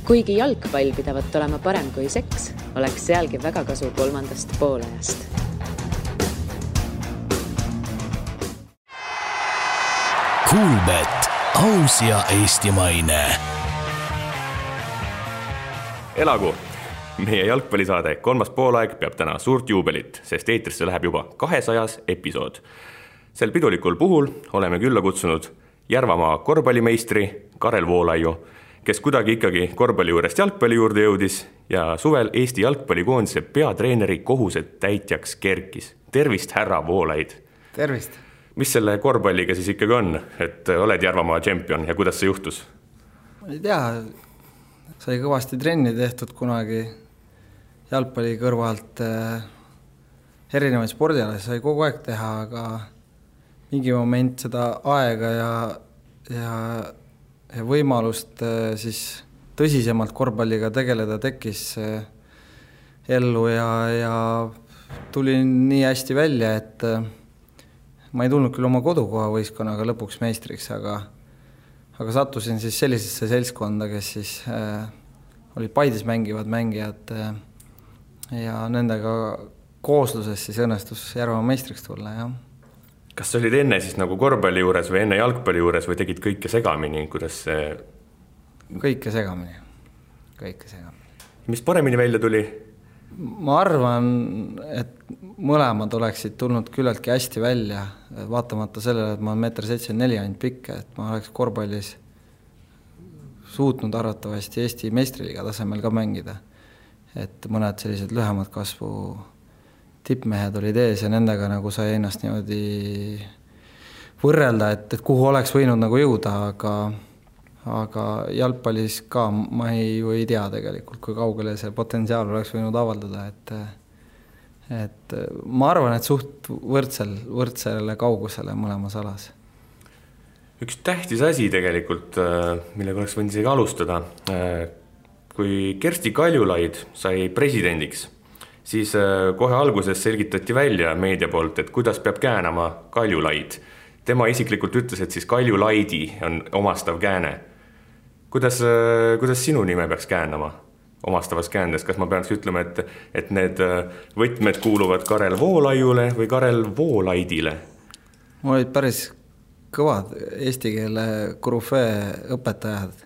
Kuigi jalgpall pidavat olema parem kui seks, oleks sealgi väga kasu 3. poolajast. Kuulbet, aus ja eestimaine. Elagu! Meie jalgpallisaade 3. poolaeg peab täna suurt juubelit, sest eetrisse läheb juba 200. episood. Sel pidulikul puhul oleme külla kutsunud Järvamaa korvpallimeistri Karel Voolaiu, kes kuidagi ikkagi korvpalli juurest jalgpalli juurde jõudis ja suvel Eesti jalgpallikoondise peatreeneri kohuset täitjaks kerkis. Tervist, härra Voolaid! Tervist! Mis selle korvpalliga siis ikkagi on, et oled Järvamaa tšempion ja kuidas see juhtus? Ma ei tea, sai kõvasti trenni tehtud kunagi jalgpalli kõrvalt erinevaid spordialasid sai kogu aeg teha, aga mingi moment seda aega ja võimalust siis tõsisemalt korvpalliga tegeleda tekkis ellu ja tuli nii hästi välja, et ma ei tulnud küll oma kodukoha võistkonnaga lõpuks meistriks, aga sattusin siis sellisesse seltskonda, kes siis olid Paides mängivad mängijad ja nendega koosluses siis õnnestus Järvamaa meistriks tulla, jah. Kas sa olid enne siis nagu korvpalli juures või enne jalgpalli juures või tegid kõike segamini, kuidas see... Kõike segamini. Mis paremini välja tuli? Ma arvan, et mõlemad oleksid tulnud küllaltki hästi välja, vaatamata sellele, et ma olen 1,74 m ainult pikk, et ma oleks korvpallis suutnud arvatavasti Eesti meistriliiga tasemel ka mängida. Et mõned sellised lühemad kasvu tippmehed olid ees ja nendega nagu sai ennast niimoodi võrrelda, et kuhu oleks võinud nagu jõuda, aga jalgpallis ka ma ei tea tegelikult, kui kaugele see potentsiaal oleks võinud avaldada, et ma arvan, et suht võrdsele kaugusele mõlemas alas. Üks tähtis asi tegelikult, millega oleks võinud isegi alustada, kui Kersti Kaljulaid sai presidendiks, siis kohe alguses selgitati välja meedia poolt, et kuidas peab käänama Kaljulaid. Tema isiklikult ütles, et siis Kaljulaidi on omastav kääne. Kuidas sinu nime peaks käänama omastavas käändes? Kas ma peaks ütlema, et need võtmed kuuluvad Karel Voolaiule või Karel Voolaidile? Mul olid päris kõvad eesti keele korüfee õpetajad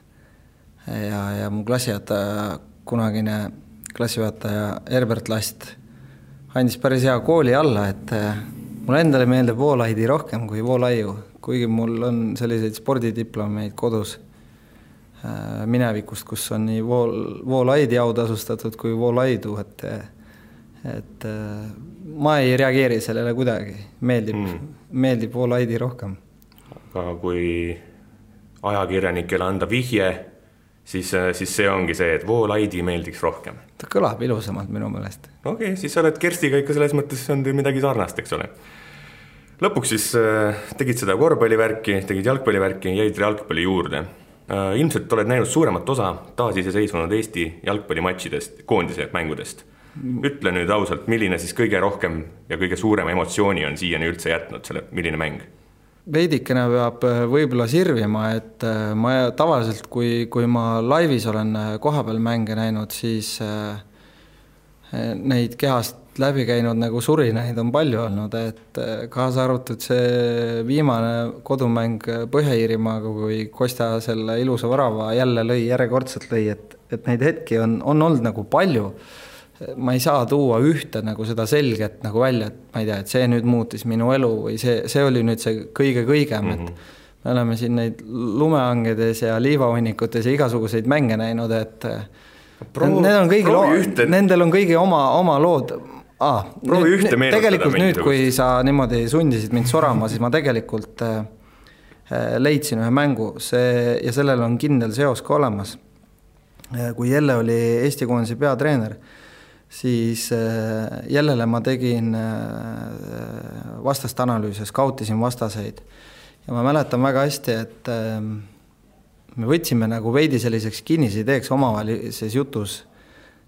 ja mu klassijuhataja, kunagine klassijuhataja Herbert Last andis päris hea kooli alla, et mul endale meeldib Voolaidi rohkem kui Voolaiu, kuigi mul on selliseid spordidiplomeid kodus minevikust, kus on nii Voolaidi autasustatud kui Voolaidu, et ma ei reageeri sellele kuidagi, meeldib Voolaidi rohkem. Aga kui ajakirjanikele anda vihje, siis see ongi see, et Voolaidi meeldiks rohkem. Ta kõlab ilusamalt minu meelest. Okei, siis sa oled Kerstiga ikka selles mõttes on midagi sarnast, eks ole. Lõpuks siis tegid seda korvpallivärki, tegid jalgpallivärki, jäid jalgpalli juurde. Ilmselt oled näinud suuremat osa taasiseseisvunud Eesti jalgpallimatšidest, koondise mängudest. Ütle nüüd ausalt, milline siis kõige rohkem ja kõige suurem emotsiooni on siiani üldse jätnud selle, milline mäng? Veidikene peab võib-olla sirvima, et ma tavaliselt, kui ma laivis olen kohapeal mänge näinud, siis neid kehast läbi käinud nagu surinaid on palju olnud, et kaasa arvatud see viimane kodumäng Põhja-Iirimaaga, kui Kostja selle ilusa värava jälle lõi, järjekordselt lõi, et neid hetki on olnud nagu palju. Ma ei saa tuua ühte nagu seda selget nagu välja, et ma ei tea, et see nüüd muutis minu elu või see oli nüüd see kõigem, et me oleme siin neid lumeangedes ja liivahunnikutes ja igasuguseid mänge näinud, et nendel on kõigi oma lood. Tegelikult nüüd, kui sa niimoodi sundisid mind sorama, siis ma tegelikult leidsin ühe mängu ja sellel on kindel seos ka olemas. Kui Jelle oli Eesti koondise peatreener, siis Jellele ma tegin vastast analüüse, skautisin vastaseid. Ja ma mäletan väga hästi, et me võtsime nagu veidi selliseks kinnisideeks omavahelises jutus,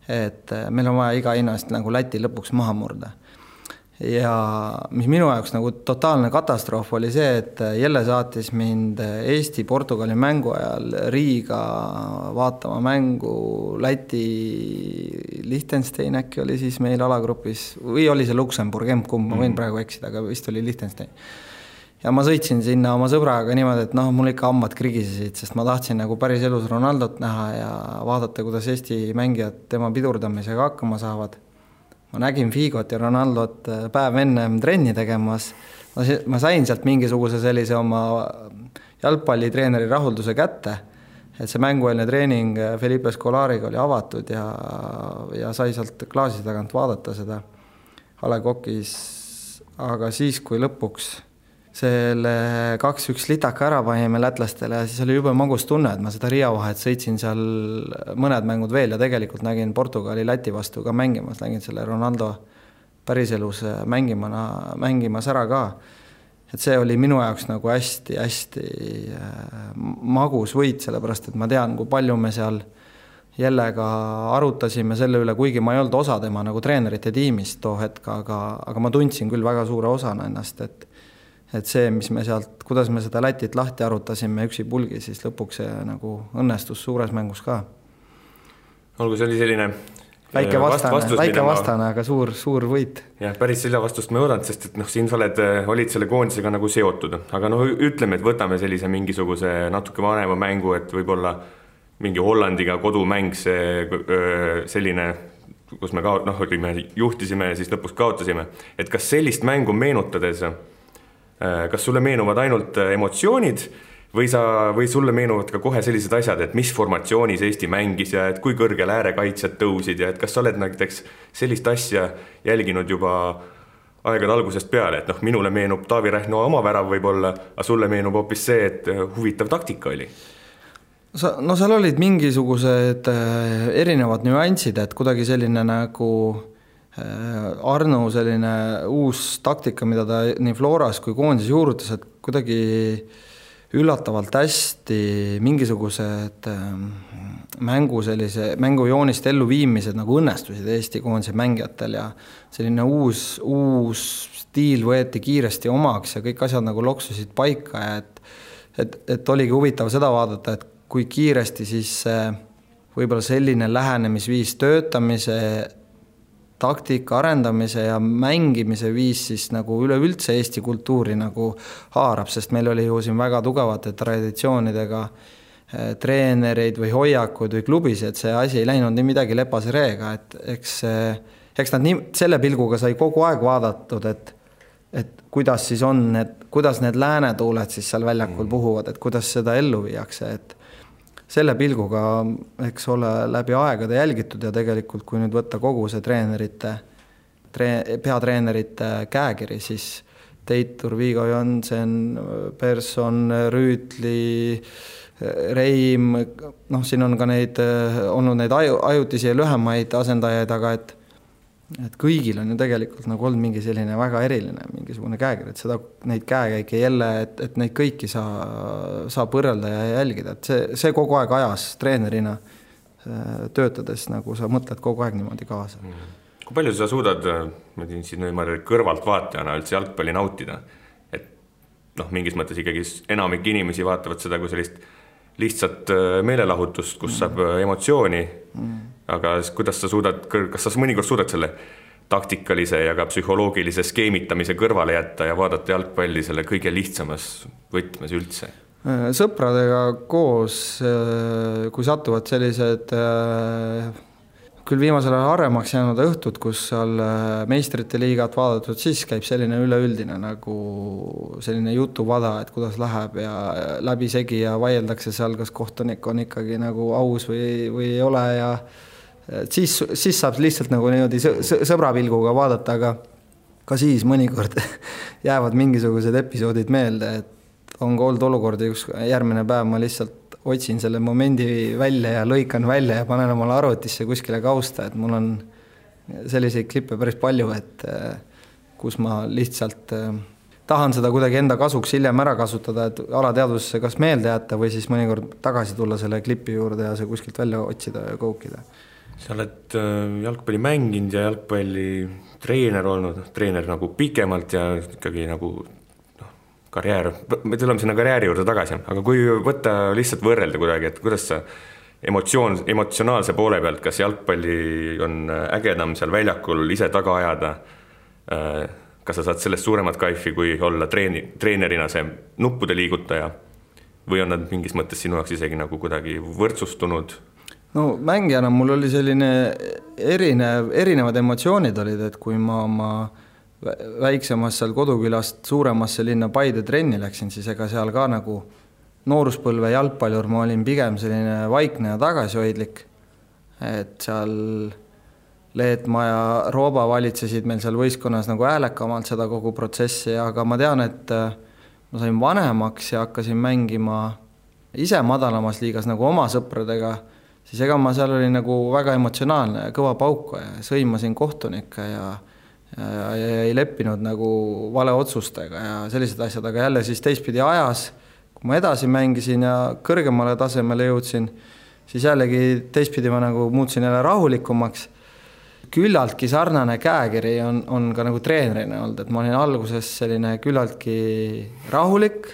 et meil on vaja iga hinnast nagu Läti lõpuks maha murda. ja mis minu jaoks nagu totaalne katastroof oli see, et Jelle saatis mind Eesti-Portugali mängu ajal Riiga vaatama mängu Läti Liechtenstein äkki oli siis meil alagrupis või oli see Luksemburg, ma võin praegu eksida, aga vist oli Liechtenstein. Ja ma sõitsin sinna oma sõbraga niimoodi, et mul ikka hambad krigisesid, sest ma tahtsin nagu päris elus Ronaldot näha ja vaadata, kuidas Eesti mängijad tema pidurdamisega hakkama saavad. Ma nägin Figot ja Ronaldot päev enne trenni tegemas. Ma sain sealt mingisuguse sellise oma jalgpallitreeneri rahulduse kätte, et see mängueelne treening Felipe Scolariga oli avatud ja sai sealt klaasi tagant vaadata seda A. Le Coq'is. Aga siis, kui lõpuks selle 2-1 litaka ära panime lätlastele ja siis oli jube magus tunne, et ma seda Riia vahet sõitsin seal mõned mängud veel ja tegelikult nägin Portugali Läti vastu ka mängimas, nägin selle Ronaldo päriselus mängimas ära ka. Et see oli minu jaoks nagu hästi magus võit, sellepärast et ma tean, kui palju me seal Jellega arutasime selle üle, kuigi ma ei olnud osa tema nagu treenerite tiimist too hetk, aga ma tundsin küll väga suure osana ennast, et see, mis me sealt, kuidas me seda Lätit lahti arutasime üksi pulgi, siis lõpuks see nagu õnnestus suures mängus ka. Olgu, see oli selline väike vastane, aga suur võit. Jah, päris selle vastust me oodanud, sest et siin sa olid selle koondisega nagu seotud. Aga ütleme, et võtame sellise mingisuguse natuke vanema mängu, et võib-olla mingi Hollandiga kodumäng, selline, kus me juhtisime ja siis lõpuks kaotasime. Et kas sellist mängu meenutades kas sulle meenuvad ainult emotsioonid või sulle meenuvad ka kohe sellised asjad, et mis formatsioonis Eesti mängis ja et kui kõrgel äärekaitsjad tõusid ja et kas sa oled näiteks sellist asja jälginud juba aegade algusest peale, et minule meenub Taavi Rähno oma värav võib-olla, aga sulle meenub hoopis see, et huvitav taktika oli? Seal olid mingisugused erinevad nüansid, et kuidagi selline nagu Arno selline uus taktika, mida ta nii Floras kui koondis juurutas, et kuidagi üllatavalt hästi mingisugused mängujoonist elluviimised nagu õnnestusid Eesti koondise mängijatel ja selline uus stiil võeti kiiresti omaks ja kõik asjad nagu loksusid paika ja et oligi huvitav seda vaadata, et kui kiiresti siis võib-olla selline lähenemisviis töötamise taktika arendamise ja mängimise viis siis nagu üleüldse Eesti kultuuri nagu haarab, sest meil oli ju siin väga tugevate traditsioonidega treenereid või hoiakud või klubis, et see asi ei läinud nii midagi lepase reega, et eks nad nii, selle pilguga sai kogu aeg vaadatud, et kuidas siis on, kuidas need läänetuuled siis seal väljakul puhuvad, et kuidas seda ellu viiakse, et selle pilguga, eks ole, läbi aegade jälgitud ja tegelikult, kui nüüd võtta kogu see peatreenerite käekiri, siis Teitur, Vigo Jonsen, Persson, Rüütli, Reim, siin on ka olnud neid ajutisi ja lühemaid asendajaid, aga et kõigil on ju tegelikult nagu olnud mingi selline väga eriline mingisugune käekiri, et neid käekäike jälle, et neid kõiki saab võrrelda ja jälgida, et see kogu aeg ajas treenerina töötades, nagu sa mõtled kogu aeg niimoodi kaasa. Kui palju sa suudad kõrvalt vaatajana üldse jalgpalli nautida? Et mingis mõttes ikkagi enamik inimesi vaatavad seda kui sellist lihtsalt meelelahutust, kus saab emotsiooni, aga kuidas sa kas sa mõnikord suudad selle taktikalise ja ka psühholoogilise skeemitamise kõrvale jätta ja vaadata jalgpalli selle kõige lihtsamas võtmes üldse? Sõpradega koos, kui satuvad sellised küll viimasel ajal haremaks jäänud õhtud, kus seal meistrite liigat vaadatud, siis käib selline üleüldine nagu selline jutuvada, et kuidas läheb ja läbi segi ja vaieldakse seal, kas kohtunik on ikkagi nagu aus või ei ole ja siis saab lihtsalt nagu niimoodi sõbrapilguga vaadata, aga ka siis mõnikord jäävad mingisugused episoodid meelde, et on ka olnud olukordi, kus järgmine päev ma lihtsalt otsin selle momendi välja ja lõikan välja ja panen omale arvutisse kuskile kausta, et mul on selliseid klippe päris palju, et kus ma lihtsalt tahan seda kuidagi enda kasuks hiljem ära kasutada, et alateadvusse kas meelde jätta või siis mõnikord tagasi tulla selle klipi juurde ja see kuskilt välja otsida ja koukida. sa oled jalgpalli mänginud ja jalgpalli treener olnud, treener nagu pikemalt ja ikkagi nagu karjäär, me tuleme sinna karjääri juurde tagasi, aga kui võtta lihtsalt võrrelda kuidagi, et kuidas sa emotsionaalse poole pealt, kas jalgpalli on ägedam seal väljakul ise taga ajada, kas sa saad sellest suuremat kaifi, kui olla treenerina see nuppude liigutaja või on nad mingis mõttes sinu jaoks isegi nagu kuidagi võrdsustunud? No mängijana mul oli selline erinevad emotsioonid olid, et kui ma oma väiksemast seal kodukülast suuremasse linna Paide trenni läksin, siis ega seal ka nagu nooruspõlve jalgpallur ma olin pigem selline vaikne ja tagasihoidlik, et seal Leetmaa ja Rooba valitsesid meil seal võistkonnas nagu häälekamalt seda kogu protsessi, aga ma tean, et ma sain vanemaks ja hakkasin mängima ise madalamas liigas nagu oma sõpradega, siis ega ma seal olin nagu väga emotsionaalne ja kõva pauka ja sõimasin kohtunikke ja ei leppinud nagu vale otsustega ja sellised asjad, aga jälle siis teistpidi ajas, kui ma edasi mängisin ja kõrgemale tasemele jõudsin, siis jällegi teistpidi ma nagu muutsin jälle rahulikumaks. Küllaltki sarnane käekiri on ka nagu treenerina olnud, et ma olin alguses selline küllaltki rahulik,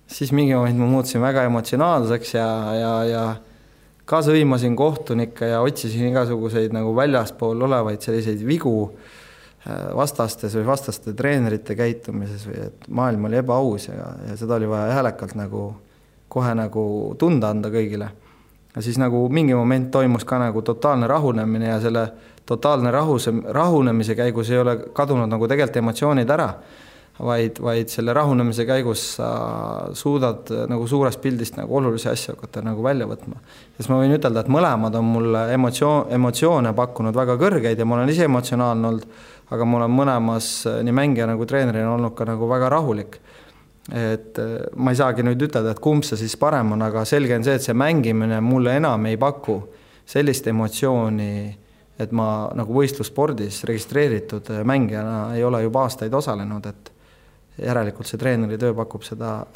siis mingi moment ma muutsin väga emotsionaalseks ja ka sõimasin kohtunikke ja otsisin igasuguseid nagu väljaspool olevaid selliseid vigu vastastes või vastaste treenerite käitumises või et maailm oli ebaaus ja seda oli vaja häälekalt nagu kohe nagu tunda anda kõigile. Ja siis nagu mingi moment toimus ka nagu totaalne rahunemine ja selle totaalne rahunemise käigus ei ole kadunud nagu tegelikult emotsioonid ära, vaid selle rahunemise käigus sa suudad nagu suurest pildist nagu olulisi asju hakata nagu välja võtma. Siis ma võin ütelda, et mõlemad on mulle emotsioone pakkunud väga kõrgeid ja ma olen ise emotsionaalne olnud, aga ma olen mõlemas nii mängija nagu treenerina olnud ka nagu väga rahulik. Et ma ei saagi nüüd ütelda, et kumb see siis parem on, aga selge on see, et see mängimine mulle enam ei paku sellist emotsiooni, et ma nagu võistlusspordis registreeritud mängijana ei ole juba aastaid osalenud, et järelikult see treeneri töö pakub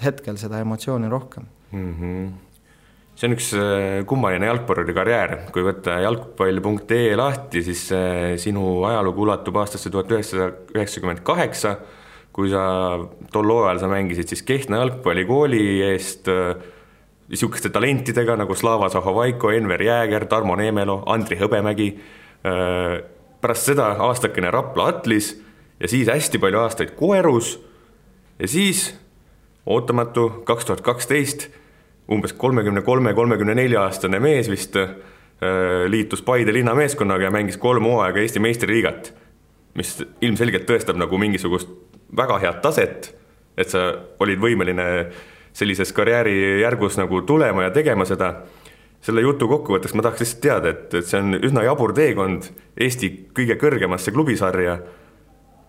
hetkel seda emotsiooni rohkem. See on üks kummaline jalgpalluri karjäär. Kui võtta jalgpall.ee lahti, siis sinu ajalugu ulatub aastasse 1998, kui sa tol ajal sa mängisid siis Kehtna jalgpallikooli eest niisuguste talentidega nagu Slava Zahovaiko, Enver Jääger, Tarmo Neemelo, Andri Hõbemägi. Pärast seda aastakene Rapla Atlis ja siis hästi palju aastaid Koerus ja siis ootamatu 2012 umbes 33-34 aastane mees vist liitus Paide linna meeskonnaga ja mängis 3 hooaega Eesti meistriliigat, mis ilmselgelt tõestab nagu mingisugust väga head taset, et sa olid võimeline sellises karjääri järgus nagu tulema ja tegema seda. Selle jutu kokkuvõtteks ma tahaks lihtsalt teada, et see on üsna jabur teekond Eesti kõige kõrgemasse klubisarja.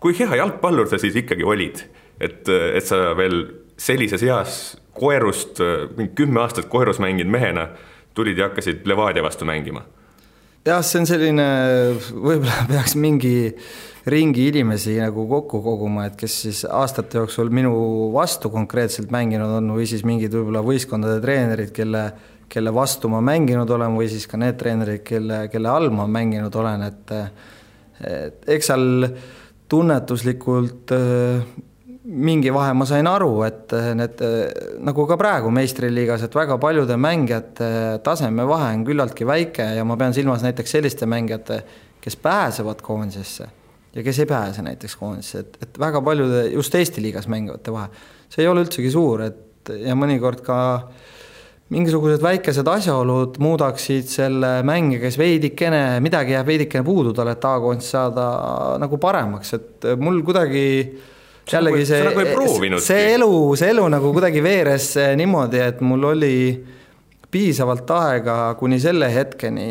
Kui hea jalgpallur sa siis ikkagi olid, et sa veel sellises eas Koerust, 10 aastat Koerus mängid mehena, tulid ja hakkasid Levadia vastu mängima? Jah, see on selline, võib-olla peaks mingi ringi inimesi nagu kokku koguma, et kes siis aastate jooksul minu vastu konkreetselt mänginud on või siis mingid võib-olla võistkondade treenerid, kelle vastu ma mänginud olen või siis ka need treenerid, kelle all ma mänginud olen, et eks seal tunnetuslikult mingi vahe ma sain aru, et need nagu ka praegu meistriliigas, et väga paljude mängijate taseme vahe on küllaltki väike ja ma pean silmas näiteks selliste mängijate, kes pääsevad koondisesse ja kes ei pääse näiteks koondisesse, et väga paljude just Eesti liigas mängivate vahe. See ei ole üldsegi suur, et ja mõnikord ka mingisugused väikesed asjaolud muudaksid selle mängija, kes midagi jääb veidikene puudu talle, et A-koondis saada nagu paremaks, et mul kuidagi jällegi see elu nagu kuidagi veeres niimoodi, et mul oli piisavalt aega kuni selle hetkeni,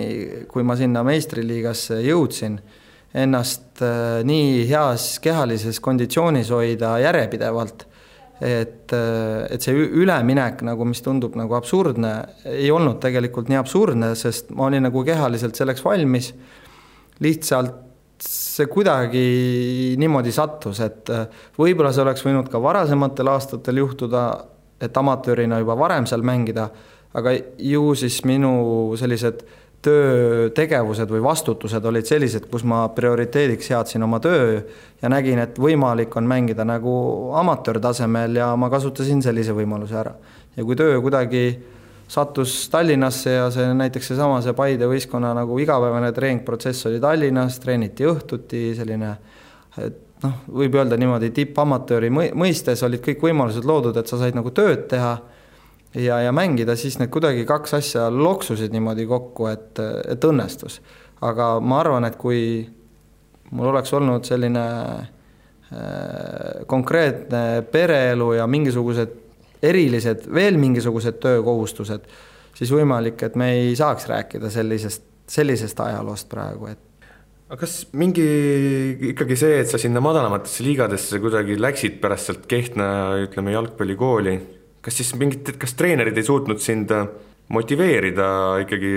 kui ma sinna meistriliigasse jõudsin, ennast nii heas kehalises konditsioonis hoida järjepidevalt, et see üleminek, nagu, mis tundub nagu absurdne, ei olnud tegelikult nii absurdne, sest ma olin nagu kehaliselt selleks valmis, lihtsalt see kuidagi niimoodi sattus, et võib-olla see oleks võinud ka varasematel aastatel juhtuda, et amatöörina juba varem seal mängida, aga ju siis minu sellised töötegevused või vastutused olid sellised, kus ma prioriteediks seadsin oma töö ja nägin, et võimalik on mängida nagu amatöörtasemel ja ma kasutasin sellise võimaluse ära. Ja kui töö kuidagi sattus Tallinnasse ja see näiteks see Paide võistkonna nagu igapäevane treeningprotsess oli Tallinnas, treeniti õhtuti, selline, et võib öelda niimoodi tippamatööri mõistes olid kõik võimalused loodud, et sa said nagu tööd teha ja mängida, siis need kuidagi kaks asja loksusid niimoodi kokku, et õnnestus. Aga ma arvan, et kui mul oleks olnud selline konkreetne pereelu ja mingisugused erilised, veel mingisugused töökohustused, siis võimalik, et me ei saaks rääkida sellisest ajaloost praegu. Aga kas ikkagi see, et sa sinna madalamatesse liigadesse kuidagi läksid pärast sealt Kehtna, ütleme, jalgpallikooli, kas treenerid ei suutnud sind motiveerida ikkagi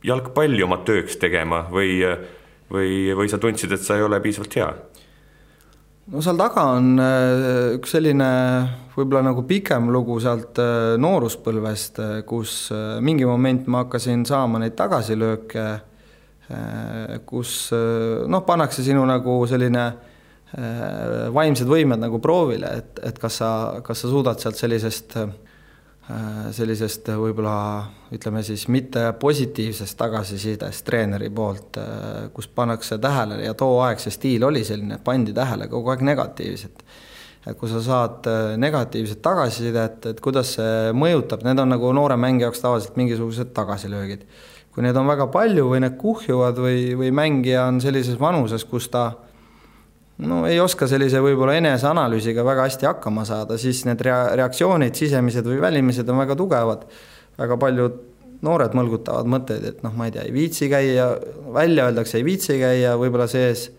jalgpalli oma tööks tegema või sa tundsid, et sa ei ole piisavalt hea? No seal taga on üks selline võib-olla nagu pikem lugu sealt nooruspõlvest, kus mingi moment ma hakkasin saama neid tagasilööke, kus pannakse sinu nagu selline vaimsed võimed nagu proovile, et kas sa suudad sealt sellisest võib-olla ütleme siis mitte positiivsest tagasisidest treeneri poolt, kus pannakse tähele ja too aeg see stiil oli selline, pandi tähele kogu aeg negatiivset. Et kui sa saad negatiivset tagasisidet, et kuidas see mõjutab, need on nagu noore mängi jaoks tavaliselt mingisugused tagasilöögid. Kui need on väga palju või need kuhjuvad või mängija on sellises vanuses, kus ta ei oska sellise võib-olla eneseanalüüsiga väga hästi hakkama saada, siis need reaktsioonid, sisemised või välimised on väga tugevad. Väga paljud noored mõlgutavad mõtteid, et ma ei tea, ei viitsi käia, välja öeldakse, ei viitsi käia, võib-olla sees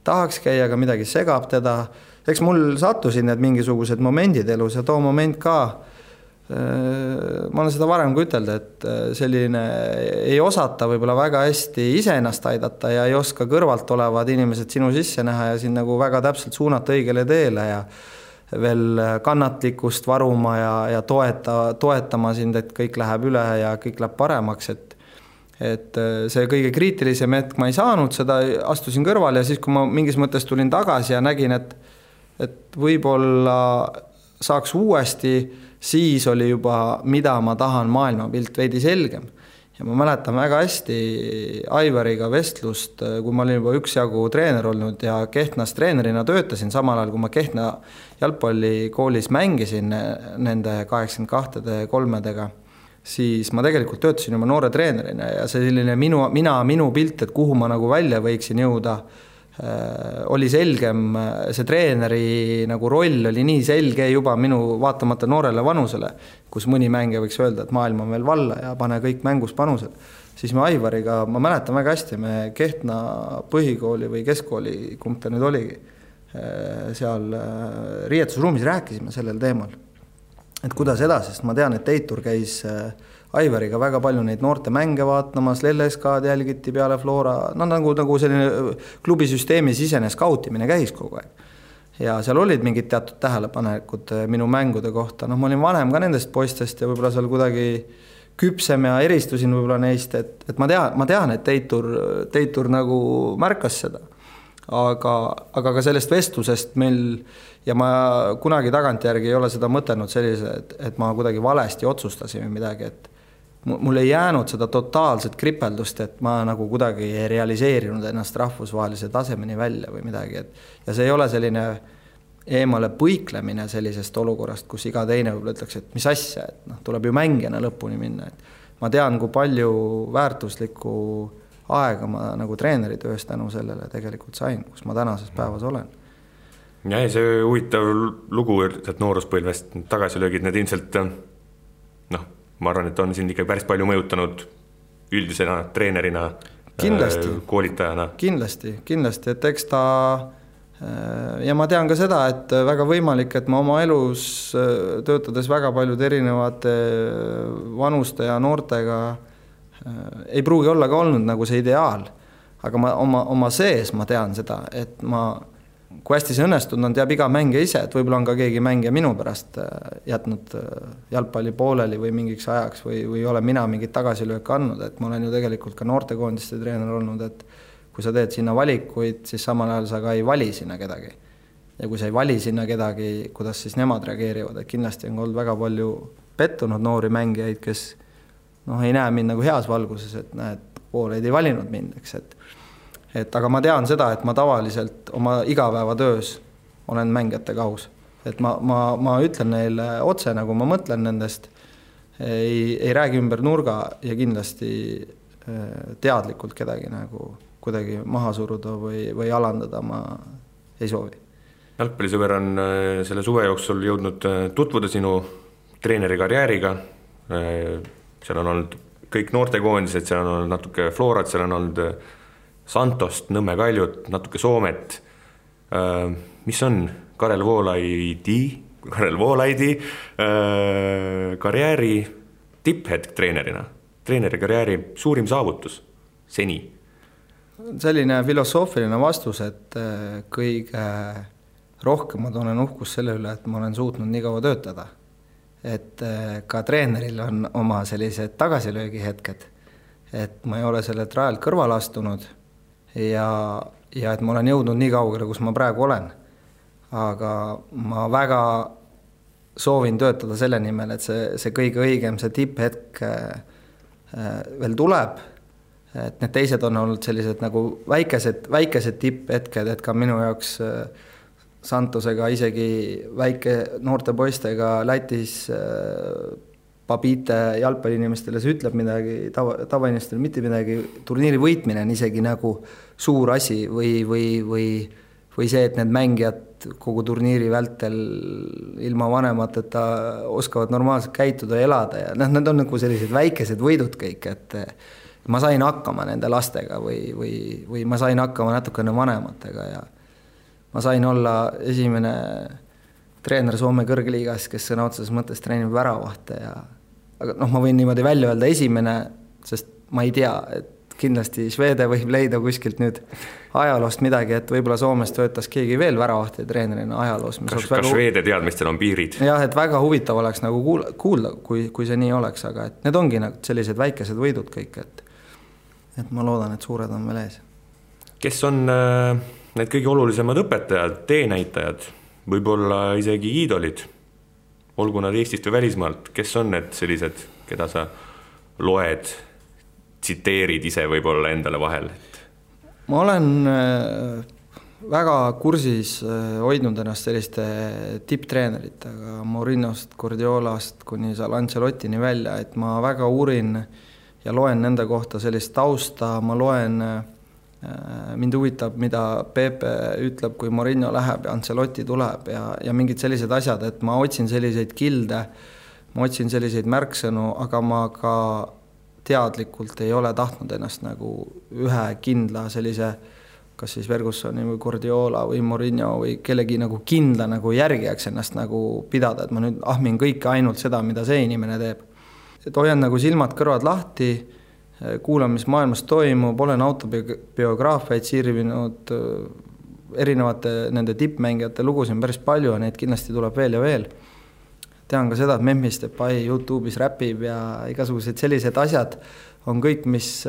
tahaks käia, aga midagi segab teda. Eks mul sattusid need mingisugused momendid elus ja too moment ka, ma olen seda varem kui ütelda, et selline ei osata võib-olla väga hästi ise ennast aidata ja ei oska kõrvalt olevad inimesed sinu sisse näha ja siin nagu väga täpselt suunata õigele teele ja veel kannatlikkust varuma ja toetama sind, et kõik läheb üle ja kõik läheb paremaks, et see kõige kriitilisem hetk ma ei saanud seda, astusin kõrval ja siis, kui ma mingis mõttes tulin tagasi ja nägin, et võib-olla saaks uuesti, siis oli juba, mida ma tahan maailmapilt veidi selgem. Ja ma mäletan väga hästi Aivariga vestlust, kui ma olin juba üksjagu treener olnud ja Kehtnas treenerina töötasin samal ajal, kui ma Kehtna jalgpallikoolis mängisin nende 82-3-dega, siis ma tegelikult töötasin juba noore treenerina ja see selline minu pilt, et kuhu ma nagu välja võiksin jõuda, oli selgem, see treeneri nagu roll oli nii selge juba minu vaatamata noorele vanusele, kus mõni mängija võiks öelda, et maailm on veel valla ja pane kõik mängus panused. Siis me Aivariga, ma mäletan väga hästi, me Kehtna põhikooli või keskkooli, kumb ta nüüd oligi, seal riietusruumis rääkisime sellel teemal, et kuidas edasi, sest ma tean, et Teitur käis Aivariga väga palju neid noorte mänge vaatamas, LSK-d jälgiti peale Flora, nagu selline klubisüsteemi sisene skautimine käis kogu aeg. Ja seal olid mingid teatud tähelepanekud minu mängude kohta, ma olin vanem ka nendest poistest ja võib-olla seal kuidagi küpsem ja eristusin võib-olla neist, et ma tean, et Teitur nagu märkas seda. Aga ka sellest vestlusest meil, ja ma kunagi tagantjärgi ei ole seda mõtelnud sellise, et ma kuidagi valesti otsustasin või midagi, et mul ei jäänud seda totaalset kripeldust, et ma nagu kuidagi ei realiseerinud ennast rahvusvahelise tasemeni välja või midagi. Ja see ei ole selline eemale põiklemine sellisest olukorrast, kus iga teine võib-olla ütleks, et mis asja, et tuleb ju mängijana lõpuni minna. Et ma tean, kui palju väärtuslikku aega ma nagu treeneritöös tänu sellele tegelikult sain, kus ma tänases päevas olen. Ja see huvitav lugu, et nooruspõlvest tagasilöögid, need ilmselt ma arvan, et on siin ikka päris palju mõjutanud üldisena treenerina, koolitajana. Kindlasti, et eks ta, ja ma tean ka seda, et väga võimalik, et ma oma elus töötades väga paljud erinevate vanuste ja noortega ei pruugi olla ka olnud nagu see ideaal, aga ma oma sees ma tean seda, et ma kui hästi see õnnestunud on, teab iga mängija ise, et võib-olla on ka keegi mängija minu pärast jätnud jalgpalli pooleli või mingiks ajaks või ole mina mingit tagasilööke andnud, et ma olen ju tegelikult ka noortekoondiste treener olnud, et kui sa teed sinna valikuid, siis samal ajal sa ka ei vali sinna kedagi. Ja kui sa ei vali sinna kedagi, kuidas siis nemad reageerivad, et kindlasti on olnud väga palju pettunud noori mängijaid, kes ei näe mind nagu heas valguses, et näed, pooled ei valinud mind, eks, et aga ma tean seda, et ma tavaliselt oma igapäevatöös olen mängijatega aus. Et ma ütlen neile otse, nagu ma mõtlen nendest, ei räägi ümber nurga ja kindlasti teadlikult kedagi nagu kuidagi maha suruda või alandada ma ei soovi. Jalgpallisõber on selle suve jooksul jõudnud tutvuda sinu treeneri karjääriga. Seal on olnud kõik noortekoondised, seal on olnud natuke Florat, seal on olnud Santost, Nõmme Kaljut, natuke Soomet. Mis on Karel Voolaidi karjääri tipphetk treenerina? Treeneri karjääri suurim saavutus seni? Selline filosoofiline vastus, et kõige rohkem ma tunnen uhkus selle üle, et ma olen suutnud nii kaua töötada. Et ka treeneril on oma sellised tagasilöögi hetked, et ma ei ole selle rajalt kõrval astunud ja et ma olen jõudnud nii kaugele, kus ma praegu olen. Aga ma väga soovin töötada selle nimel, et see kõige õigem, see tipphetk veel tuleb. Et need teised on olnud sellised nagu väikesed tipphetked, et ka minu jaoks Santosega isegi väike noorte poistega Lätis Babite jalgpalliinimestele see ütleb midagi, tavainimestele mitte midagi, turniiri võitmine on isegi nagu suur asi või see, et need mängijad kogu turniiri vältel ilma vanemateta oskavad normaalselt käituda ja elada ja need on nagu sellised väikesed võidud kõik, et ma sain hakkama nende lastega või ma sain hakkama natukene vanematega ja ma sain olla esimene treener Soome kõrgliigas, kes sõna otseses mõttes treenib väravahte ja aga ma võin niimoodi välja öelda esimene, sest ma ei tea, et kindlasti Švede võib leida kuskilt nüüd ajaloost midagi, et võib-olla Soomes töötas keegi veel väravahti treenerina ajaloos. Kas Švede teadmistel on piirid? Jah, et väga huvitav oleks nagu kuulda, kui see nii oleks, aga et need ongi nagu sellised väikesed võidud kõik, et ma loodan, et suured on veel ees. Kes on need kõige olulisemad õpetajad, teenäitajad, võib-olla isegi iidolid, olgu nad Eestist või välismaalt, kes on need sellised, keda sa loed, tsiteerid ise võib-olla endale vahel? Ma olen väga kursis hoidnud ennast selliste tipptreeneritega, Mourinhost, Guardiolast kuni Ancelottini välja, et ma väga uurin ja loen nende kohta sellist tausta, ma loen, mind huvitab, mida Pepe ütleb, kui Mourinho läheb ja Ancelotti tuleb ja mingid sellised asjad, et ma otsin selliseid kilde, ma otsin selliseid märksõnu, aga ma ka teadlikult ei ole tahtnud ennast nagu ühe kindla sellise, kas siis Fergusoni või Guardiola või Mourinho või kellegi nagu kindla nagu järgijaks ennast nagu pidada, et ma nüüd ahmin kõike ainult seda, mida see inimene teeb. Et hoian nagu silmad kõrvad lahti, kuulan, mis maailmas toimub, olen autobiograafiaid sirvinud, erinevate nende tippmängijate lugusid päris palju ja neid kindlasti tuleb veel ja veel. Tean ka seda, et Memphis Depay YouTube'is räpib ja igasugused sellised asjad on kõik, mis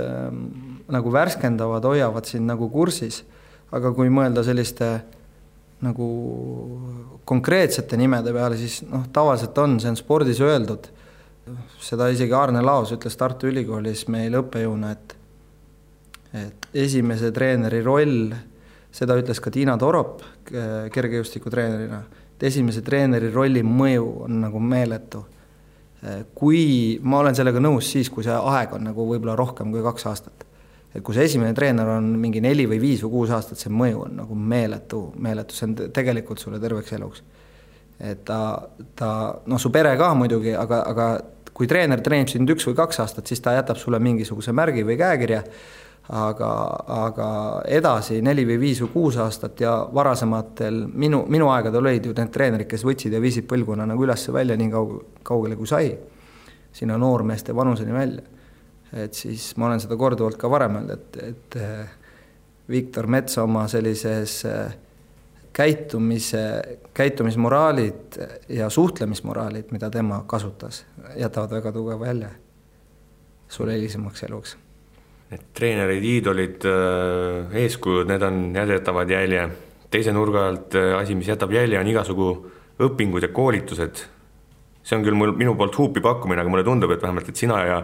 nagu värskendavad, hoiavad siin nagu kursis. Aga kui mõelda selliste nagu konkreetsete nimede peale, siis tavaliselt on, see on spordis öeldud. Seda isegi Arne Laos ütles Tartu Ülikoolis meil õppejõuna, et esimese treeneri roll, seda ütles ka Tiina Torop kergejõustiku treenerina, et esimese treeneri rolli mõju on nagu meeletu. Kui ma olen sellega nõus siis, kui see aeg on nagu võib-olla rohkem kui 2 aastat. Et kui see esimene treener on mingi 4 või 5 või 6 aastat, see mõju on nagu meeletu, see on tegelikult sulle terveks eluks. Et su pere ka muidugi, aga kui treener treenib sind 1 või 2 aastat, siis ta jätab sulle mingisuguse märgi või käekirja, aga edasi 4 või 5 või 6 aastat ja varasematel minu aegadel olid ju need treenerid, kes võtsid ja viisid põlguna nagu ülesse välja nii kaugele kui sai, sinna noormeeste vanuseni välja. Et siis ma olen seda korduvalt ka varem öelnud, et Viktor Mets oma sellises käitumismoraalid ja suhtlemismoraalid, mida tema kasutas, jätavad väga tugeva jälje sulle hilisemaks eluks. Need treenerid, iidolid, eeskujud, need jätavad jälje. Teise nurga alt asi, mis jätab jälje, on igasugu õpingud ja koolitused. See on küll minu poolt huupi pakkumine, aga mulle tundub, et vähemalt et sina ja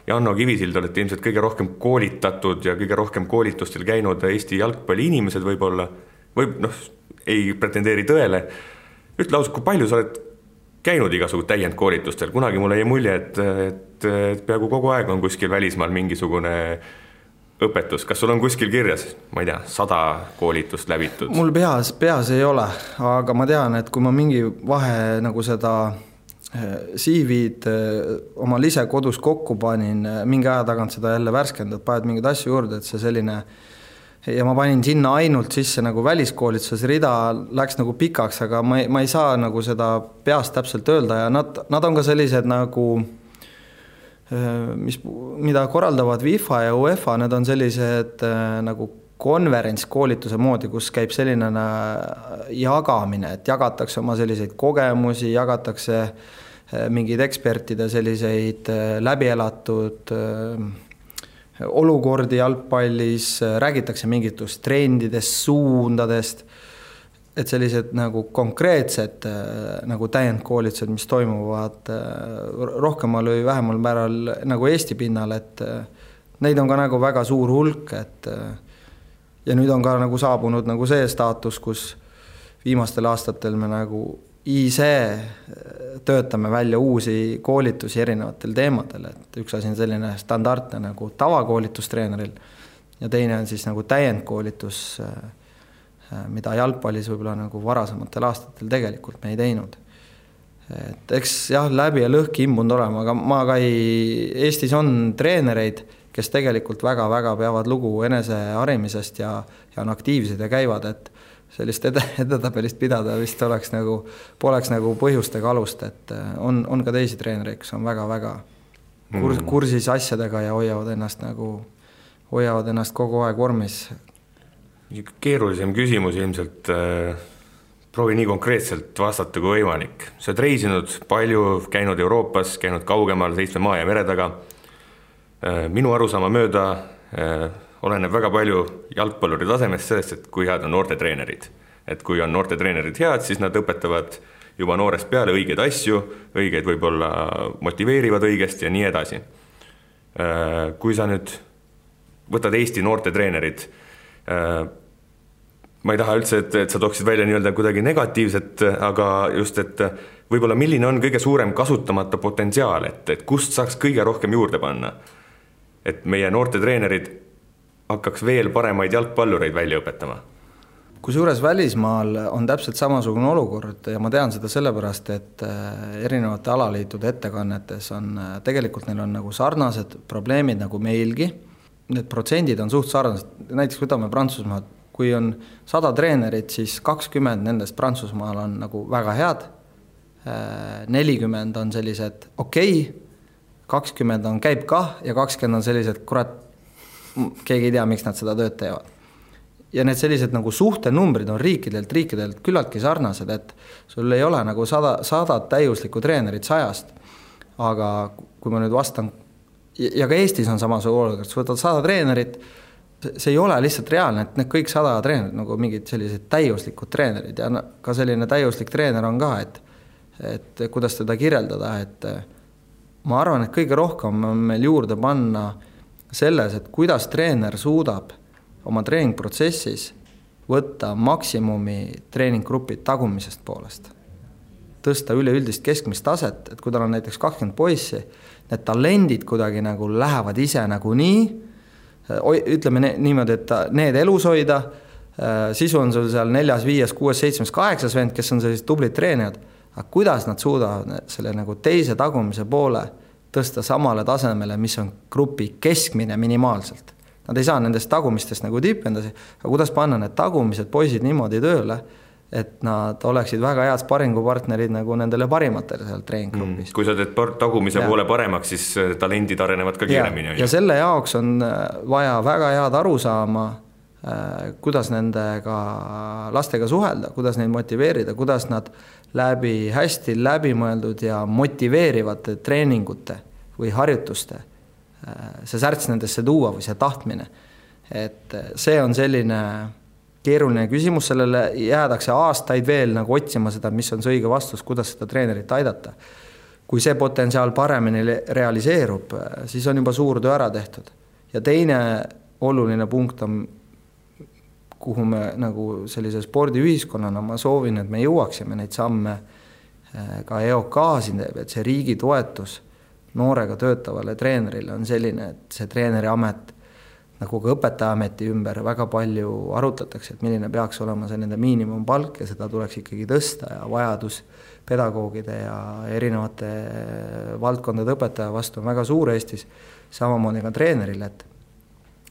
Janno Kivisild olete ilmselt kõige rohkem koolitatud ja kõige rohkem koolitustel käinud Eesti jalgpalli inimesed võib-olla, ei pretendeeri tõele. Ütle ausalt, kui palju sa oled käinud igasugu täiendkoolitustel? Kunagi mulle jäi mulje, et peaaegu kogu aeg on kuskil välismaal mingisugune õpetus. Kas sul on kuskil kirjas, ma ei tea, 100 koolitust läbitud? Mul peas ei ole, aga ma tean, et kui ma mingi vahe nagu seda CV-d oma ise kodus kokku panin, mingi aja tagant seda jälle värskendad, paned mingeid asju juurde, et see selline, ja ma panin sinna ainult sisse nagu väliskoolituses, rida läks nagu pikaks, aga ma ei saa nagu seda peast täpselt öelda ja nad on ka sellised nagu, mida korraldavad FIFA ja UEFA, need on sellised nagu konverentskoolituse moodi, kus käib selline jagamine, et jagatakse oma selliseid kogemusi, jagatakse mingeid ekspertide selliseid läbielatud olukordi jalgpallis, räägitakse mingitust trendidest, suundadest, et sellised nagu konkreetsed nagu täiendkoolitused, mis toimuvad rohkemal või vähemal määral nagu Eesti pinnal, et neid on ka nagu väga suur hulk, et ja nüüd on ka nagu saabunud nagu see staatus, kus viimastel aastatel me nagu ise töötame välja uusi koolitusi erinevatel teemadel, et üks asi on selline standardne nagu tavakoolitustreeneril ja teine on siis nagu täiendkoolitus, mida jalgpallis võib-olla nagu varasematel aastatel tegelikult me ei teinud. Et eks jah, läbi ja lõhki imbunud olema, aga ma ka Eestis on treenereid, kes tegelikult väga-väga peavad lugu eneseharimisest ja on aktiivsed ja käivad, et sellist edetabelist pidada vist poleks nagu põhjustega alust, et on ka teisi treenereid, kes on väga-väga kursis asjadega ja hoiavad ennast kogu aeg vormis. Keerulisem küsimus ilmselt, proovi nii konkreetselt vastata kui võimalik. Sa oled reisinud palju, käinud Euroopas, käinud kaugemal 7 maa ja mere taga. Minu arusaama mööda oleneb väga palju jalgpalluri tasemest sellest, et kui head on noortetreenerid. Et kui on noortetreenerid head, siis nad õpetavad juba noorest peale õigeid asju, õigeid võib-olla motiveerivad õigesti ja nii edasi. Kui sa nüüd võtad Eesti noortetreenerid, ma ei taha üldse, et sa tooksid välja nii-öelda kuidagi negatiivset, aga just, et võib-olla milline on kõige suurem kasutamata potentsiaal, et kust saaks kõige rohkem juurde panna, et meie noortetreenerid hakkaks veel paremaid jalgpallureid välja õpetama. Kusjuures välismaal on täpselt samasugune olukord ja ma tean seda sellepärast, et erinevate alaliitude ettekannetes on, tegelikult neil on nagu sarnased probleemid nagu meilgi. Need protsendid on suht sarnased, näiteks võtame Prantsusmaad, kui on 100 treenerit, siis 20 nendest Prantsusmaal on nagu väga head, 40 on sellised okei, 20 on käib kah ja 20 on sellised, kurat, keegi ei tea, miks nad seda tööd teevad. Ja need sellised nagu suhtenumbrid on riikidelt küllaltki sarnased, et sul ei ole nagu 100 täiuslikku treenerit 100, aga kui ma nüüd vastan, ja ka Eestis on samasugune olukord, sa võtad 100 treenerit, see ei ole lihtsalt reaalne, et need kõik 100 treenerid nagu mingid sellised täiuslikud treenerid ja ka selline täiuslik treener on ka, et kuidas teda kirjeldada, et ma arvan, et kõige rohkem on meil juurde panna selles, et kuidas treener suudab oma treeningprotsessis võtta maksimumi treeninggrupid tagumisest poolest. Tõsta üleüldist keskmist taset, et kui tal on näiteks 20 poissi, need talendid kuidagi nagu lähevad ise nagu nii, ütleme niimoodi, et need elus hoida, sisu on sul seal 4, 5, 6, 7, 8 vend, kes on sellised tublid treenijad, aga kuidas nad suudavad selle nagu teise tagumise poole tõsta samale tasemele, mis on grupi keskmine minimaalselt. Nad ei saa nendest tagumistest nagu tippendasi, aga kuidas panna need tagumised poisid niimoodi tööle, et nad oleksid väga head sparingupartnerid nagu nendele parimatele seal treeninggrupis. Kui sa teed tagumise poole paremaks, siis talendid arenevad ka kiiremini. Ja selle jaoks on vaja väga head arusaama kuidas nendega lastega suhelda, kuidas neid motiveerida, kuidas nad läbi hästi läbimõeldud ja motiveerivate treeningute või harjutuste see särts nendesse tuua või see tahtmine. Et see on selline keeruline küsimus, sellele jäädakse aastaid veel nagu otsima seda, mis on see õige vastus, kuidas seda treenerit aidata. Kui see potentsiaal paremini realiseerub, siis on juba suur töö ära tehtud. Ja teine oluline punkt on, kuhu me nagu sellise spordiühiskonnana ma soovin, et me jõuaksime neid samme ka EOK-siin, et see riigi toetus noorega töötavale treenerile on selline, et see treeneri amet nagu ka õpetajaameti ümber väga palju arutatakse, et milline peaks olema see nende miinimumpalk ja seda tuleks ikkagi tõsta ja vajadus pedagoogide ja erinevate valdkondade õpetaja vastu on väga suur Eestis, samamoodi ka treenerile,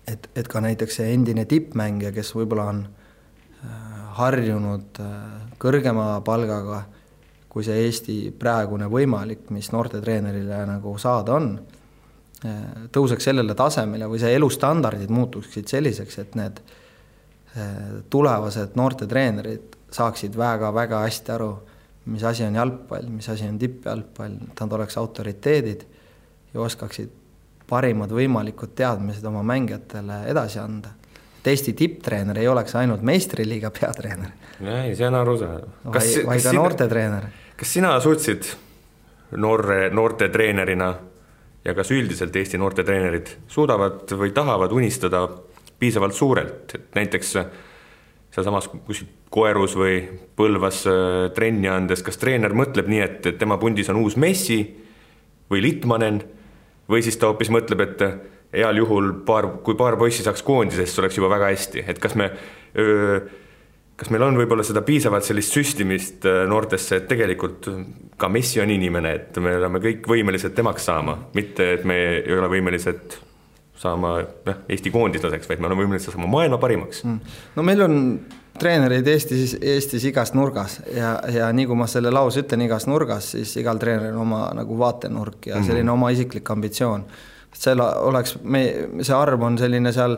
et ka näiteks see endine tippmängija, kes võib-olla on harjunud kõrgema palgaga, kui see Eesti praegune võimalik, mis noorte treenerile nagu saada on, tõuseks sellele tasemele või see elustandardid muutuksid selliseks, et need tulevased noorte treenerid saaksid väga-väga hästi aru, mis asi on jalgpall, mis asi on tippjalgpall, nad oleks autoriteedid ja oskaksid parimad võimalikud teadmised oma mängijatele edasi anda. Et Eesti tipptreener ei oleks ainult meistriliiga peatreener. Ei, see on arusaadav. Vai ka noorte treener. Kas sina suutsid noorte treenerina ja kas üldiselt Eesti noorte treenerid suudavad või tahavad unistada piisavalt suurelt, et näiteks sealsamas Koerus või Põlvas trenni andes, kas treener mõtleb nii, et tema pundis on uus Messi või Litmanen või siis ta hoopis mõtleb, et heal juhul kui paar poissi saaks koondisest, oleks juba väga hästi, et kas meil on võib-olla seda piisavalt sellist süstimist noortesse, et tegelikult ka Messi on inimene, et me oleme kõik võimelised temaks saama, mitte et me ei ole võimelised saama Eesti koondislaseks, vaid me oleme võimelised saama maailma parimaks. No meil on treenereid Eestis igas nurgas ja nii kui ma selle lause ütlen igas nurgas, siis igal treeneril on oma nagu vaatenurk ja selline oma isiklik ambitsioon. See arv on selline seal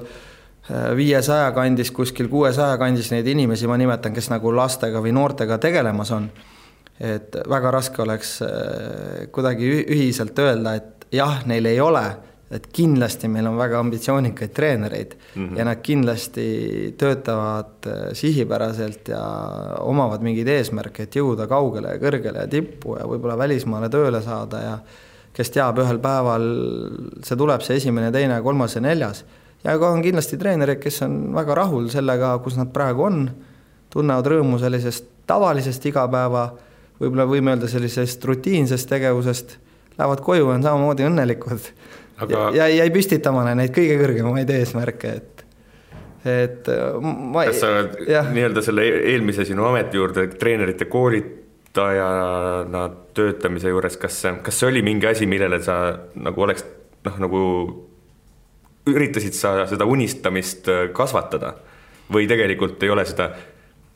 500 kandis, kuskil 600 kandis neid inimesi, ma nimetan, kes nagu lastega või noortega tegelemas on. Et väga raske oleks kuidagi ühiselt öelda, et jah, neil ei ole, et kindlasti meil on väga ambitsioonikaid treenereid ja nad kindlasti töötavad sihipäraselt ja omavad mingid eesmärke, et jõuda kaugele ja kõrgele ja tippu ja võib-olla välismaale tööle saada ja kes teab ühel päeval, see tuleb see 1., 2., 3. ja 4. Ja ka on kindlasti treenerid, kes on väga rahul sellega, kus nad praegu on, tunnevad rõõmu sellisest tavalisest igapäeva, võib-olla võime öelda sellisest rutiinsest tegevusest, lähevad koju ja on samamoodi õnnelikud. Ja ei püstitamane neid kõige kõrgemaid eesmärke, kas sa nii-öelda selle eelmise sinu ameti juurde treenerite koolitajana töötamise juures, kas see oli mingi asi, millele sa nagu oleks nagu üritasid sa seda unistamist kasvatada või tegelikult ei ole seda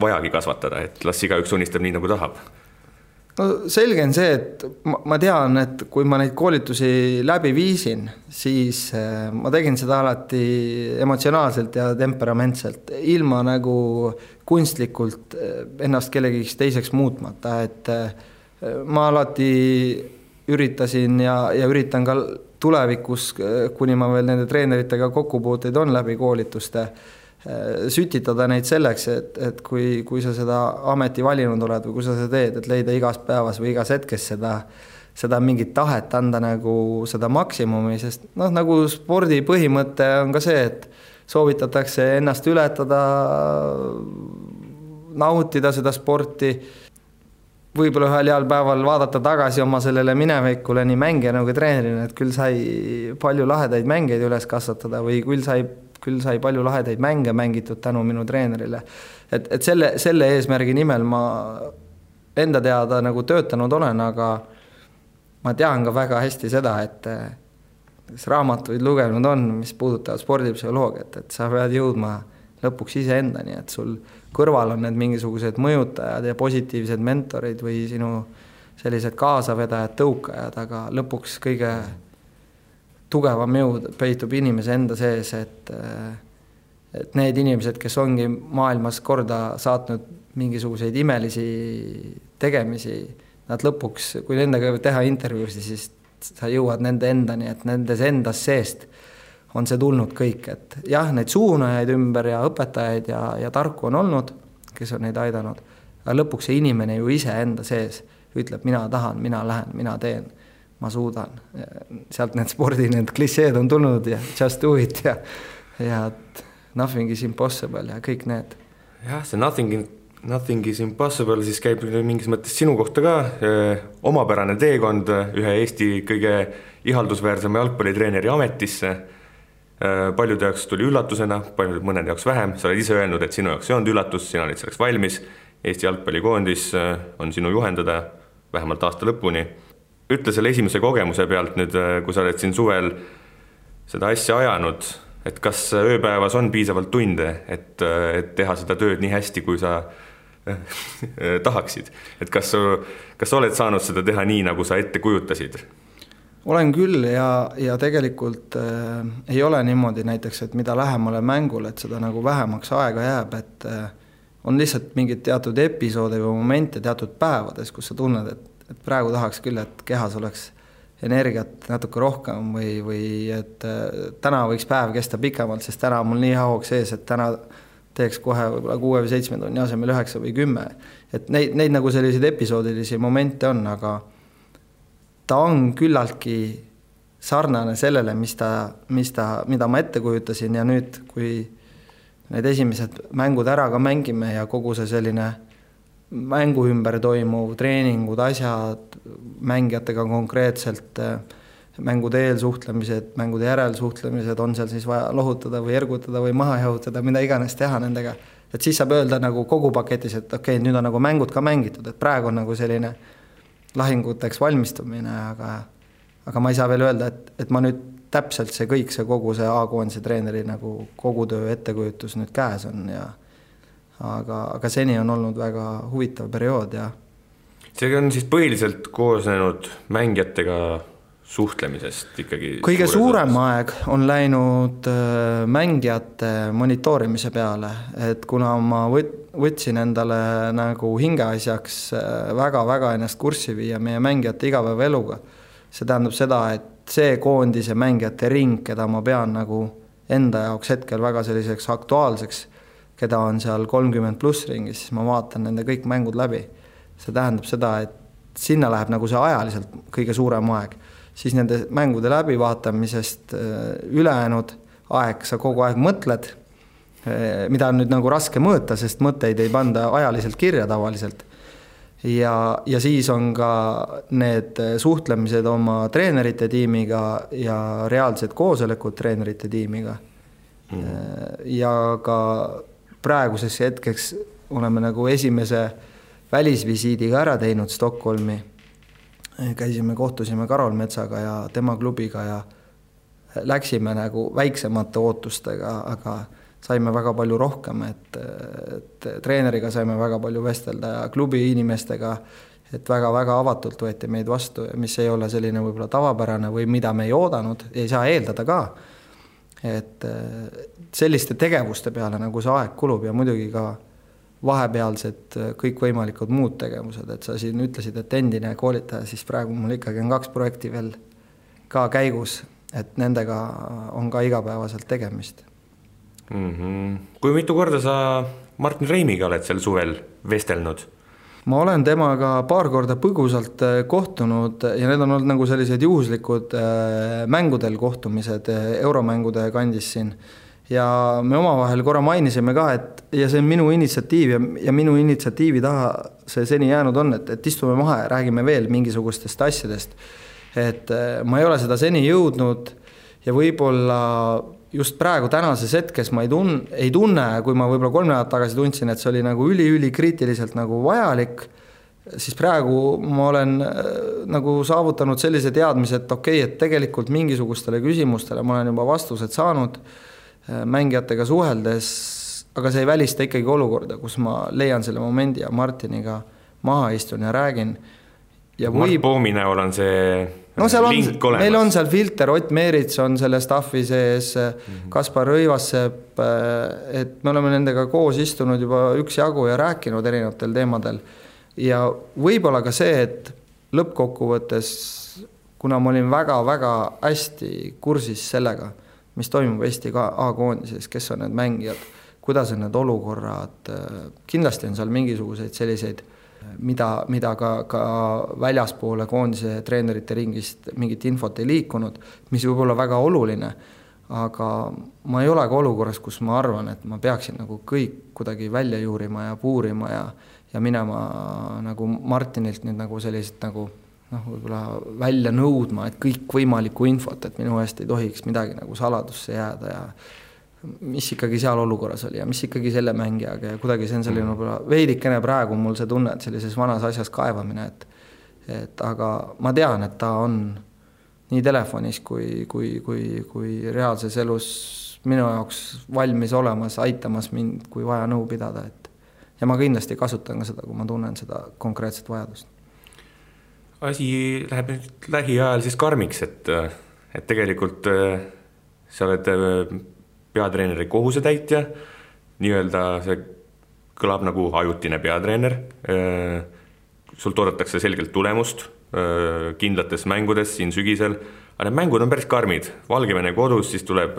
vajagi kasvatada, et las igaüks unistab nii, nagu tahab? No selge on see, et ma tean, et kui ma neid koolitusi läbi viisin, siis ma tegin seda alati emotsionaalselt ja temperamentselt, ilma nagu kunstlikult ennast kellegiks teiseks muutmata, et ma alati üritasin ja üritan ka tulevikus, kuni ma veel nende treeneritega kokkupuuteid on läbi koolituste, sütitada neid selleks, et kui sa seda ameti valinud oled või kui sa seda teed, et leida igas päevas või igas hetkes seda mingit tahet anda nagu seda maksimumi, sest nagu spordi põhimõte on ka see, et soovitatakse ennast ületada, nautida seda sporti, võib-olla ühel heal päeval vaadata tagasi oma sellele minevikule nii mängija nagu treenerina, et küll sai palju lahedaid mängeid üles kasvatada või küll sai palju lahedaid mänge mängitud tänu minu treenerile. Et selle eesmärgi nimel ma enda teada nagu töötanud olen, aga ma tean ka väga hästi seda, et raamatuid lugenud on, mis puudutavad spordipsühholoogiat, et sa pead jõudma lõpuks ise endani, et sul kõrval on need mingisugused mõjutajad ja positiivsed mentorid või sinu sellised kaasavedajad, tõukajad, aga lõpuks kõige tugevam jõud peitub inimese enda sees, et need inimesed, kes ongi maailmas korda saatnud mingisuguseid imelisi tegemisi, nad lõpuks, kui nendega teha intervjuusi, siis sa jõuad nende endani, et nendes endas seest on see tulnud kõik, et jah, neid suunajaid ümber ja õpetajaid ja tarku on olnud, kes on neid aidanud, aga lõpuks see inimene ju ise enda sees ütleb, mina tahan, mina lähen, mina teen, ma suudan. Sealt need spordi, need klišeed on tulnud ja just do it ja nothing is impossible ja kõik need. Jah, see nothing is impossible siis käib mingis mõttes sinu kohta ka, omapärane teekond ühe Eesti kõige ihaldusväärsema jalgpallitreeneri ametisse. Paljude jaoks tuli üllatusena, mõnede jaoks vähem. Sa oled ise öelnud, et sinu jaoks ei olnud üllatus, sina olid selleks valmis. Eesti jalgpallikoondis on sinu juhendada vähemalt aasta lõpuni. Ütle selle esimese kogemuse pealt nüüd, kui sa oled siin suvel seda asja ajanud, et kas ööpäevas on piisavalt tunde, et teha seda tööd nii hästi, kui sa tahaksid. Et kas oled saanud seda teha nii, nagu sa ette kujutasid? Olen küll ja tegelikult ei ole niimoodi näiteks, et mida lähemale mängule, et seda nagu vähemaks aega jääb, et on lihtsalt mingid teatud episoode või momente teatud päevades, kus sa tunned, et praegu tahaks küll, et kehas oleks energiat natuke rohkem või et täna võiks päev kesta pikemalt, sest täna on mul nii haug sees, et täna teeks kohe võib-olla 6 või 7 tunni asemel 9 või 10. Et neid nagu selliseid episoodilisi momente on, aga ta on küllaltki sarnane sellele, mida ma ette kujutasin ja nüüd, kui need esimesed mängud ära ka mängime ja kogu see selline mängu ümber toimuv, treeningud, asjad, mängijatega konkreetselt, mängude eelsuhtlemised, mängude järelsuhtlemised, on seal siis vaja lohutada või ergutada või maha jahutada, mida iganes teha nendega. Et siis saab öelda nagu kogu paketis, et okei, nüüd on nagu mängud ka mängitud, et praegu on nagu selline lahinguteks valmistumine, aga ma ei saa veel öelda, et ma nüüd täpselt see kõik, see kogu see A-koondise treeneri nagu kogu töö ettekujutus nüüd käes on ja aga seni on olnud väga huvitav periood ja see on siis põhiliselt koosnenud mängijatega suhtlemisest ikkagi. Kõige suurem aeg on läinud mängijate monitoorimise peale, et kuna ma võtsin endale nagu hingeasjaks väga-väga ennast kurssi viia meie mängijate igapäevaeluga, see tähendab seda, et see koondise mängijate ring, keda ma pean nagu enda jaoks hetkel väga selliseks aktuaalseks, keda on seal 30+ ringis, siis ma vaatan nende kõik mängud läbi. See tähendab seda, et sinna läheb nagu see ajaliselt kõige suurem aeg. Siis nende mängude läbivaatamisest ülejäänud aeg, sa kogu aeg mõtled, mida on nüüd nagu raske mõõta, sest mõtteid ei panda ajaliselt kirja tavaliselt. Ja siis on ka need suhtlemised oma treenerite tiimiga ja reaalsed koosolekud treenerite tiimiga. Ja ka praeguseks hetkeks oleme nagu esimese välisvisiidiga ära teinud Stockholmi. Käisime, kohtusime Karol Metsaga ja tema klubiga ja läksime nagu väiksemate ootustega, aga saime väga palju rohkem, et treeneriga saime väga palju vestelda ja klubi inimestega, et väga-väga avatult võeti meid vastu, mis ei ole selline võib-olla tavapärane või mida me ei oodanud, ei saa eeldada ka. Et selliste tegevuste peale nagu see aeg kulub ja muidugi ka vahepealsed kõik võimalikud muud tegevused, et sa siin ütlesid, et endine koolitaja, siis praegu mul ikkagi on 2 projekti veel ka käigus, et nendega on ka igapäevaselt tegemist. Kui mitu korda sa Martin Reimiga oled sel suvel vestelnud? Ma olen temaga paar korda põgusalt kohtunud ja need on olnud nagu sellised juhuslikud mängudel kohtumised euromängude kandis siin. Ja me omavahel korra mainisime ka, et ja see on minu initsiatiiv ja minu initsiatiivi taha see seni jäänud on, et istume maha ja räägime veel mingisugustest asjadest. Et ma ei ole seda seni jõudnud ja võib-olla just praegu tänases hetkes ma ei tunne, kui ma võib-olla 3 nädalat tagasi tundsin, et see oli nagu üli kriitiliselt nagu vajalik, siis praegu ma olen nagu saavutanud sellise teadmise, et okei, et tegelikult mingisugustele küsimustele ma olen juba vastused saanud mängijatega suheldes, aga see ei välista ikkagi olukorda, kus ma leian selle momendi ja Martiniga maha istun ja räägin. ja Mart Poomi näol on see link olemas. Meil on seal filter, Ott Meerits on selle staffi sees, Kaspar Rõivassepp, et me oleme nendega koos istunud juba üksjagu ja rääkinud erinevatel teemadel. Ja võib-olla ka see, et lõppkokkuvõttes, kuna ma olin väga-väga hästi kursis sellega, mis toimub Eesti A-koondises, kes on need mängijad, kuidas on need olukorrad, kindlasti on seal mingisuguseid selliseid, mida ka väljaspoole koondise treenerite ringist mingit infot ei liikunud, mis võib olla väga oluline, aga ma ei ole ka olukorras, kus ma arvan, et ma peaksin nagu kõik kuidagi välja juurima ja puurima ja minema nagu Martinilt nüüd nagu sellised nagu võib-olla välja nõudma, et kõik võimalikku infot, et minu eest ei tohiks midagi nagu saladusse jääda ja mis ikkagi seal olukorras oli ja mis ikkagi selle mängijaga ja kuidagi see on selline veidikene praegu mul see tunne, et sellises vanas asjas kaevamine, et aga ma tean, et ta on nii telefonis kui reaalses elus minu jaoks valmis olemas, aitamas mind, kui vaja nõu pidada, ja ma kindlasti kasutan ka seda, kui ma tunnen seda konkreetset vajadust. Asi läheb nüüd lähiajal siis karmiks, et tegelikult sa oled peatreeneri kohusetäitja, nii-öelda see kõlab nagu ajutine peatreener, sult oodatakse selgelt tulemust kindlates mängudes siin sügisel, aga need mängud on päris karmid, Valgevene kodus, siis tuleb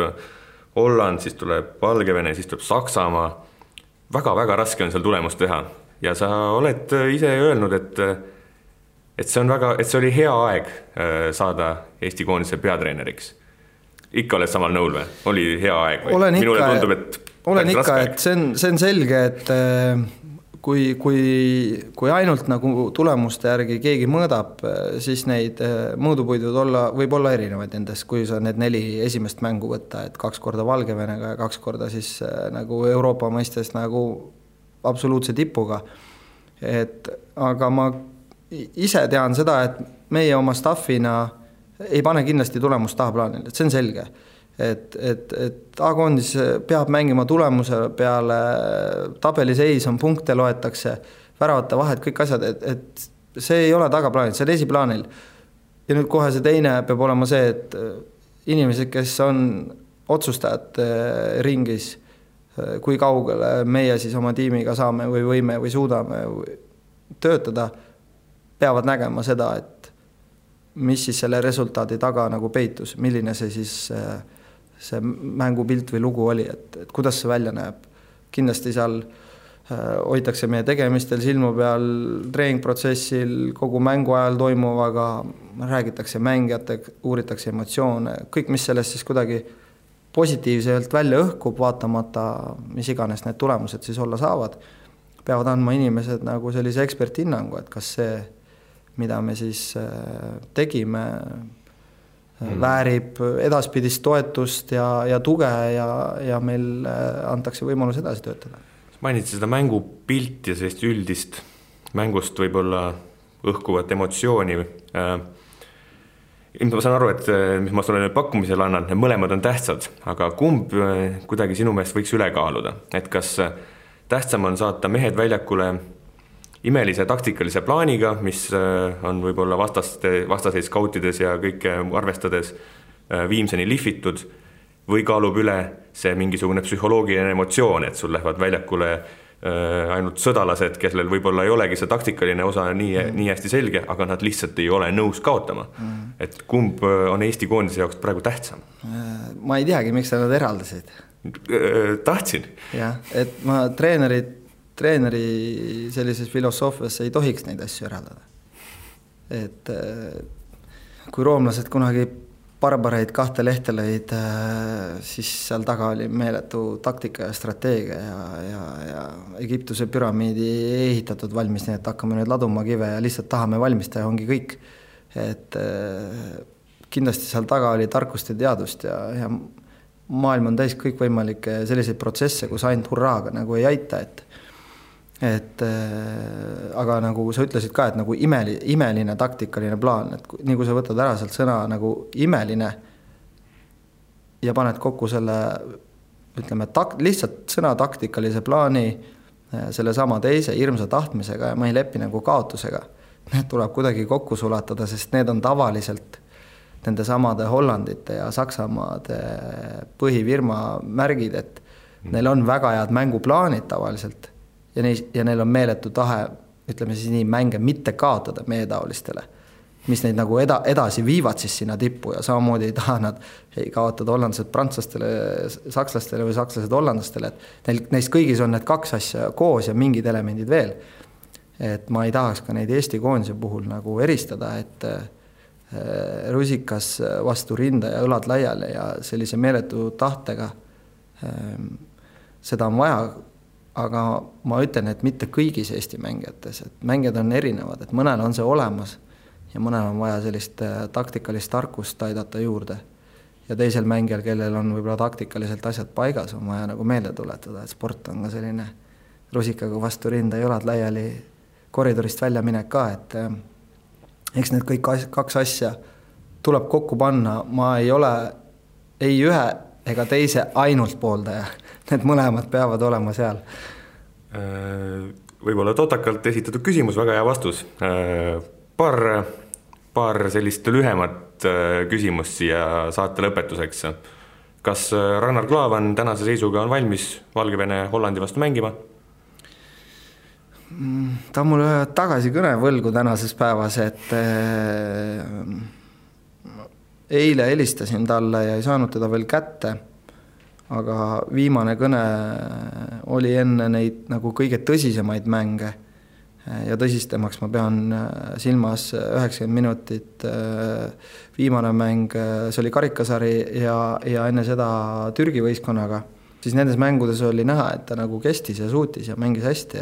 Holland, siis tuleb Valgevene, siis tuleb Saksamaa, väga-väga raske on seal tulemust teha ja sa oled ise öelnud, et see oli hea aeg saada Eesti koondise peatreeneriks. Ikka oled samal nõul või? Oli hea aeg või? Minule tundub, et olen ikka, et see on selge, et kui ainult nagu tulemuste järgi keegi mõõdab, siis neid mõõdupuidud võib olla erinevaid nendest, kui sa need 4 esimest mängu võtta, et 2 korda Valgevenega ja 2 korda siis nagu Euroopa mõistes nagu absoluutse tipuga. Aga ma ise tean seda, et meie oma staffina ei pane kindlasti tulemust tahaplaanil, et see on selge. Et A-koondis peab mängima tulemuse peale, tabeliseis on punkte loetakse, väravate vahed, kõik asjad, et see ei ole tagaplaanil, see on esiplaanil. Ja nüüd kohe see teine peab olema see, et inimesed, kes on otsustajad ringis, kui kaugele meie siis oma tiimiga saame või võime või suudame töötada, peavad nägema seda, et mis siis selle resultaadi taga nagu peitus, milline see siis see mängupilt või lugu oli, et kuidas see välja näeb. Kindlasti seal hoitakse meie tegemistel silmu peal, treeningprotsessil, kogu mängu ajal toimuvaga, räägitakse mängijate, uuritakse emotsioone, kõik, mis sellest siis kuidagi positiivselt välja õhkub, vaatamata, mis iganes need tulemused siis olla saavad, peavad andma inimesed nagu sellise eksperthinnangu, et kas see mida me siis tegime, väärib edaspidist toetust ja tuge ja meil antakse võimalus edasi töötada. Mainiti seda mängupilti ja sellist üldist mängust võib-olla õhkuvat emotsiooni. Ma saan aru, et mis ma sulle pakkumisel annan, mõlemad on tähtsad, aga kumb kuidagi sinu meelest võiks üle kaaluda? Et kas tähtsam on saata mehed väljakule imelise taktikalise plaaniga, mis on võib-olla vastaseid skautides ja kõike arvestades viimseni lihvitud, või kaalub üle see mingisugune psühholoogiline emotsioon, et sul lähevad väljakule ainult sõdalased, kellel võib-olla ei olegi see taktikaline osa nii hästi selge, aga nad lihtsalt ei ole nõus kaotama. Et kumb on Eesti koondise jaoks praegu tähtsam? Ma ei teagi, miks nad eraldasid. Tahtsin. Jah, et ma treeneri sellises filosoofias ei tohiks neid asju eraldada. Et kui roomlased kunagi barbareid 2 lehte lõid, siis seal taga oli meeletu taktika ja strateegia ja Egiptuse püramiidi ei ehitatud valmis, nii et hakkame nüüd laduma kive ja lihtsalt tahame valmistada, ongi kõik. Et kindlasti seal taga oli tarkust ja teadust ja maailm on täis kõik võimalikke selliseid protsesse, kus ainult hurraaga nagu ei aita, aga nagu sa ütlesid ka, et nagu imeline taktikaline plaan, et nii kui sa võtad ära sealt sõna nagu imeline ja paned kokku selle, ütleme, lihtsalt sõna taktikalise plaani selle sama teise hirmsa tahtmisega ja ma ei lepi nagu kaotusega, need tuleb kuidagi kokku sulatada, sest need on tavaliselt nende samade Hollandite ja Saksamaade põhifirma märgid, et neil on väga head mänguplaanid tavaliselt ja neil on meeletu tahe, ütleme siis nii, mänge mitte kaotada meie taolistele, mis neid nagu edasi viivad siis sinna tippu ja samamoodi ei taha nad ei kaotada hollandlased prantslastele, sakslastele või sakslased hollandlastele, et neist kõigis on need kaks asja koos ja mingid elemendid veel. Et ma ei tahaks ka neid Eesti koondise puhul nagu eristada, et rusikas vastu rinda ja õlad laiali ja sellise meeletu tahtega seda on vaja, aga ma ütlen, et mitte kõigis Eesti mängijates, et mängijad on erinevad, et mõnel on see olemas ja mõnel on vaja sellist taktikalist tarkust aidata juurde. Ja teisel mängijal, kellel on võib-olla taktikaliselt asjad paigas, on vaja nagu meelde tuletada, et sport on ka selline rusikaga vastu rinda ja õlad laiali koridorist välja minek ka, et eks need kõik kaks asja tuleb kokku panna. Ma ei ole ei ühe ega teise ainult pooldaja. Need mõlemad peavad olema seal. Võib-olla totakalt esitatud küsimus, väga hea vastus. Paar sellist lühemat küsimust siia saate lõpetuseks. Kas Ragnar Klavan tänase seisuga on valmis Valgevene Hollandi vastu mängima? Ta on mulle tagasi kõne võlgu tänases päevas, et eile helistasin talle ja ei saanud teda veel kätte, aga viimane kõne oli enne neid nagu kõige tõsisemaid mänge ja tõsistemaks ma pean silmas 90 minutit viimane mäng, see oli karikasari ja enne seda Türgi võistkonnaga, siis nendes mängudes oli näha, et ta nagu kestis ja suutis ja mängis hästi,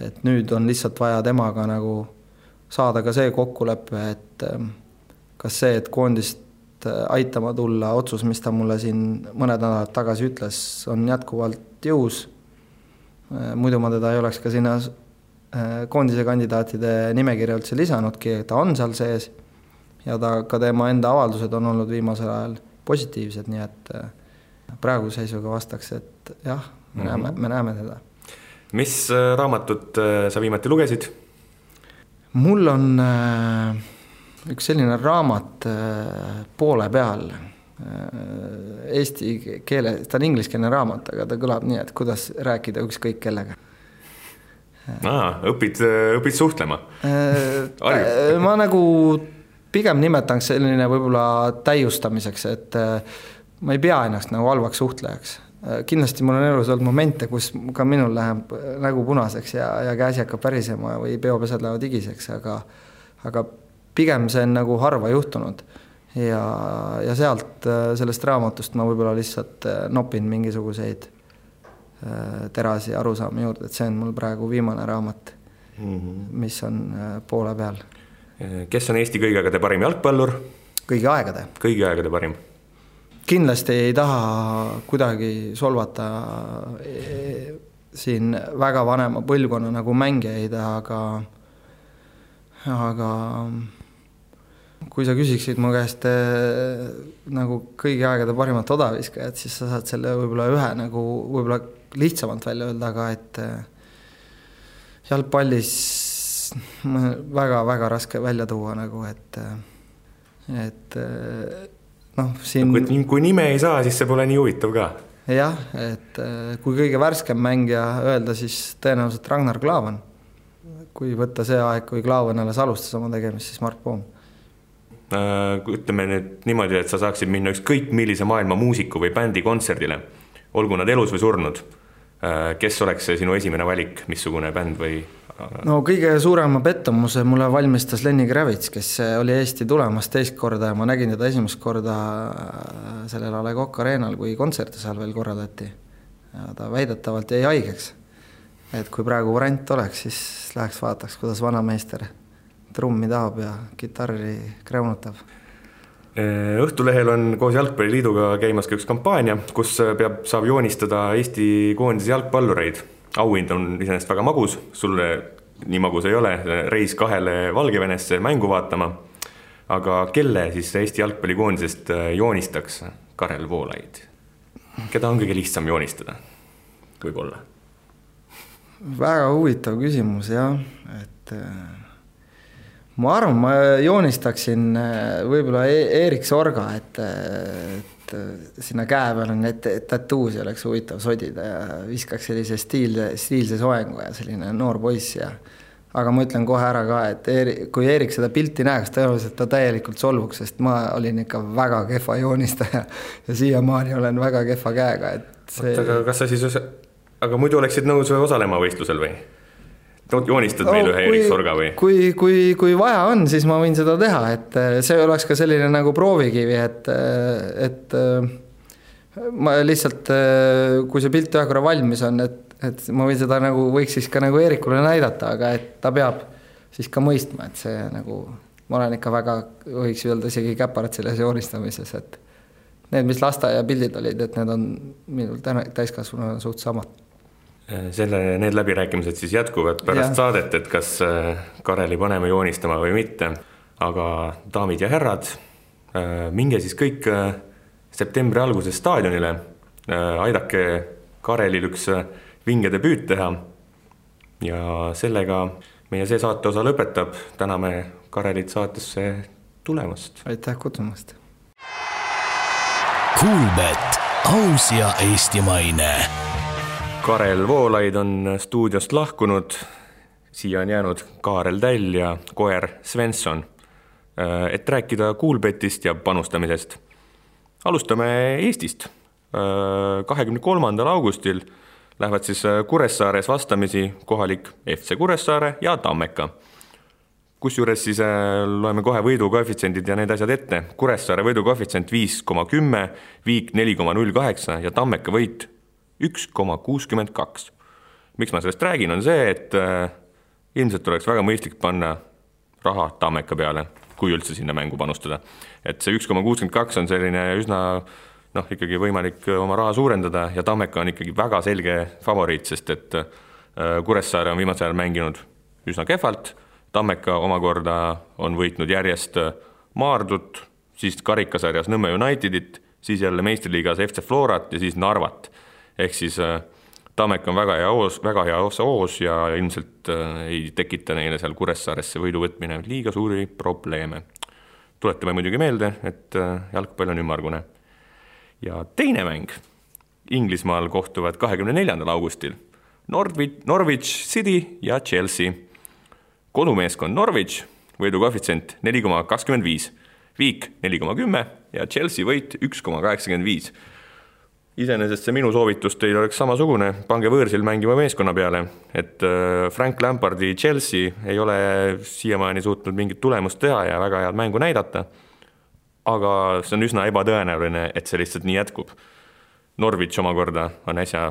et nüüd on lihtsalt vaja temaga nagu saada ka see kokkulepe, et kas see, et koondist aitama tulla, otsus, mis ta mulle siin mõned nädalad tagasi ütles, on jätkuvalt jõus. Muidu ma teda ei oleks ka sinna koondise kandidaatide nimekirja üldse lisanudki, ta on seal sees ja ka tema enda avaldused on olnud viimasel ajal positiivsed, nii et praegu seisuga vastaks, et jah, me näeme teda. Mis raamatut sa viimati lugesid? Mul on üks selline raamat poole peal eesti keele, ta on ingliskeelne raamat, aga ta kõlab nii, et kuidas rääkida ükskõik kellega. Õpid suhtlema? Ma nagu pigem nimetaks selline võib-olla täiustamiseks, et ma ei pea ennast nagu halvaks suhtlejaks. Kindlasti mul on elus olnud momente, kus ka minul läheb nägu punaseks ja käsi hakkab pärisema või peopesad lähevad igiseks, aga pigem see on nagu harva juhtunud ja sealt sellest raamatust ma võib-olla lihtsalt nopin mingisuguseid terasi arusaami juurde, et see on mul praegu viimane raamat, mis on poole peal. Kes on Eesti kõigi aegade parim jalgpallur? Kõigi aegade. Kõigi aegade parim. Kindlasti ei taha kuidagi solvata siin väga vanema põlvkonna nagu mängijaid, aga kui sa küsiksid mu käest nagu kõigi aegade parimat odaviskajat, siis sa saad selle võib-olla ühe nagu võib-olla lihtsamalt välja öelda, aga et jalgpallis väga-väga raske välja tuua nagu, et siin... Kui nime ei saa, siis see pole nii huvitav ka. Jah, et kui kõige värskem mängija öelda, siis tõenäoliselt Ragnar Klavan. Kui võtta see aeg, kui Klavan alles alustas oma tegemist, siis Mark Poom. Ütleme nüüd niimoodi, et sa saaksid minna ükskõik millise maailma muusiku või bändi kontserdile, olgu nad elus või surnud. Kes oleks see sinu esimene valik, missugune bänd või... No kõige suurema pettumuse mulle valmistas Lenny Kravitz, kes oli Eesti tulemas teist korda ja ma nägin teda esimest korda sellel A Le Coq Arenal, kui kontserte seal veel korraldati. Ja ta väidetavalt jäi haigeks. Et kui praegu variant oleks, siis läheks vaataks, kuidas vanameister trummi tahab ja kitarri kreunutab. Õhtulehel on koos Jalgpalliliiduga käimas ka üks kampaania, kus saab joonistada Eesti koondise jalgpallureid. Auhind on iseenesest väga magus, sulle nii magus ei ole, reis 2 Valgevenesse mängu vaatama, aga kelle siis Eesti jalgpallikoondisest joonistaks Karel Voolaid? Keda on kõige lihtsam joonistada? Võib-olla? Väga huvitav küsimus, jah, et ma arvan, ma joonistaksin võib-olla Erik Sorga, et sinna käe peal on need tattoos ja oleks huvitav sodida ja viskaks sellise stiilse soengu ja selline noor poiss ja aga ma ütlen kohe ära ka, et kui Erik seda pilti näeks, tõenäoliselt ta täielikult solvuks, sest ma olin ikka väga kehva joonistaja ja siiamaani olen väga kehva käega, et see... Kas sa siis... Aga muidu oleksid nõus osalema võistlusel või? Joonistad meil ühe Erik Sorga või? Kui vaja on, siis ma võin seda teha, et see oleks ka selline nagu proovikivi, et ma lihtsalt, kui see pilt ühe korra valmis on, et ma võin seda nagu, võiks siis ka nagu Eerikule näidata, aga et ta peab siis ka mõistma, et see nagu, ma olen ikka väga, võiks öelda isegi käparad selles joonistamises, et need, mis lasteaia pildid olid, et need on minul täiskasvanu suht samad. Need läbirääkimised siis jätkuvad pärast saadet, et kas Kareli paneme joonistama või mitte, aga daamid ja herrad, minge siis kõik septembri alguses staadionile, aidake Karelil üks vinge debüüt teha ja sellega meie see saate osa lõpetab, täname Karelit saatesse tulemast. Aitäh kutsumast. Kuulbet, aus ja eestimaine. Karel Voolaid on stuudiost lahkunud, siia on jäänud Kaarel Täll ja koer Svensson, et rääkida Kuulbetist ja panustamisest. Alustame Eestist. 23. augustil lähevad siis Kuressaares vastamisi kohalik FC Kuressaare ja Tammeka. Kusjuures siis loeme kohe võidukoefitsendid ja need asjad ette. Kuressaare võidukoefitsent 5,10, Viik 4,08 ja Tammeka võit 1,62. Miks ma sellest räägin, on see, et ilmselt oleks väga mõistlik panna raha Tammeka peale, kui üldse sinna mängu panustada. Et see 1,62 on selline üsna ikkagi võimalik oma raha suurendada ja Tammeka on ikkagi väga selge favoriit, sest et Kuressaare on viimasel ajal mänginud üsna kehvalt, Tammeka omakorda on võitnud järjest Maardut, siis karikasarjas Nõmme Unitedit, siis jälle meistriliigas FC Florat ja siis Narvat. Ehk siis Tammeka on väga hea oos ja ilmselt ei tekita neile seal Kuressaaresse võidu võtmine liiga suuri probleeme. Tuletame muidugi meelde, et jalgpall on ümmargune. Ja teine mäng. Inglismaal kohtuvad 24. augustil Norwich City ja Chelsea. Kodumeeskond Norwich, võidukoefitsient 4,25, Viik 4,10 ja Chelsea võit 1,85. Iseenesest see minu soovitus teil oleks samasugune, pange võõrsil mängima meeskonna peale, et Frank Lampardi Chelsea ei ole siiamaani suutnud mingit tulemust teha ja väga head mängu näidata, aga see on üsna ebatõenäoline, et see lihtsalt nii jätkub. Norwich omakorda on äsja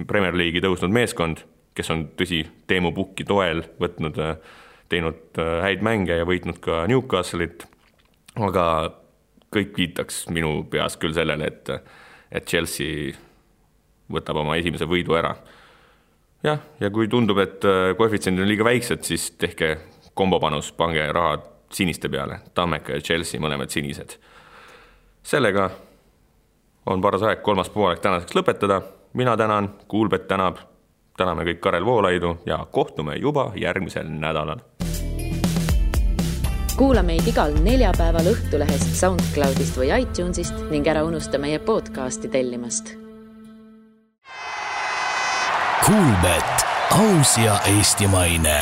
Premier League'i tõusnud meeskond, kes on tõsi Teemu Pukki toel teinud häid mänge ja võitnud ka Newcastle'it, aga kõik viitaks minu peas küll sellele, et Chelsea võtab oma esimese võidu ära. Ja kui tundub, et koefitsendid on liiga väiksed, siis tehke kombopanus, pange raha siniste peale. Tammeka ja Chelsea mõlemad sinised. Sellega on paras aeg kolmas poolek tänaseks lõpetada. Mina tänan, Kuulbet tänab, täname kõik Karel Voolaidu ja kohtume juba järgmisel nädalal. Kuula meid igal neljapäeval Õhtulehest, SoundCloudist või iTunesist ning ära unusta meie podcasti tellimast. Kuulbet, aus ja eestimaine.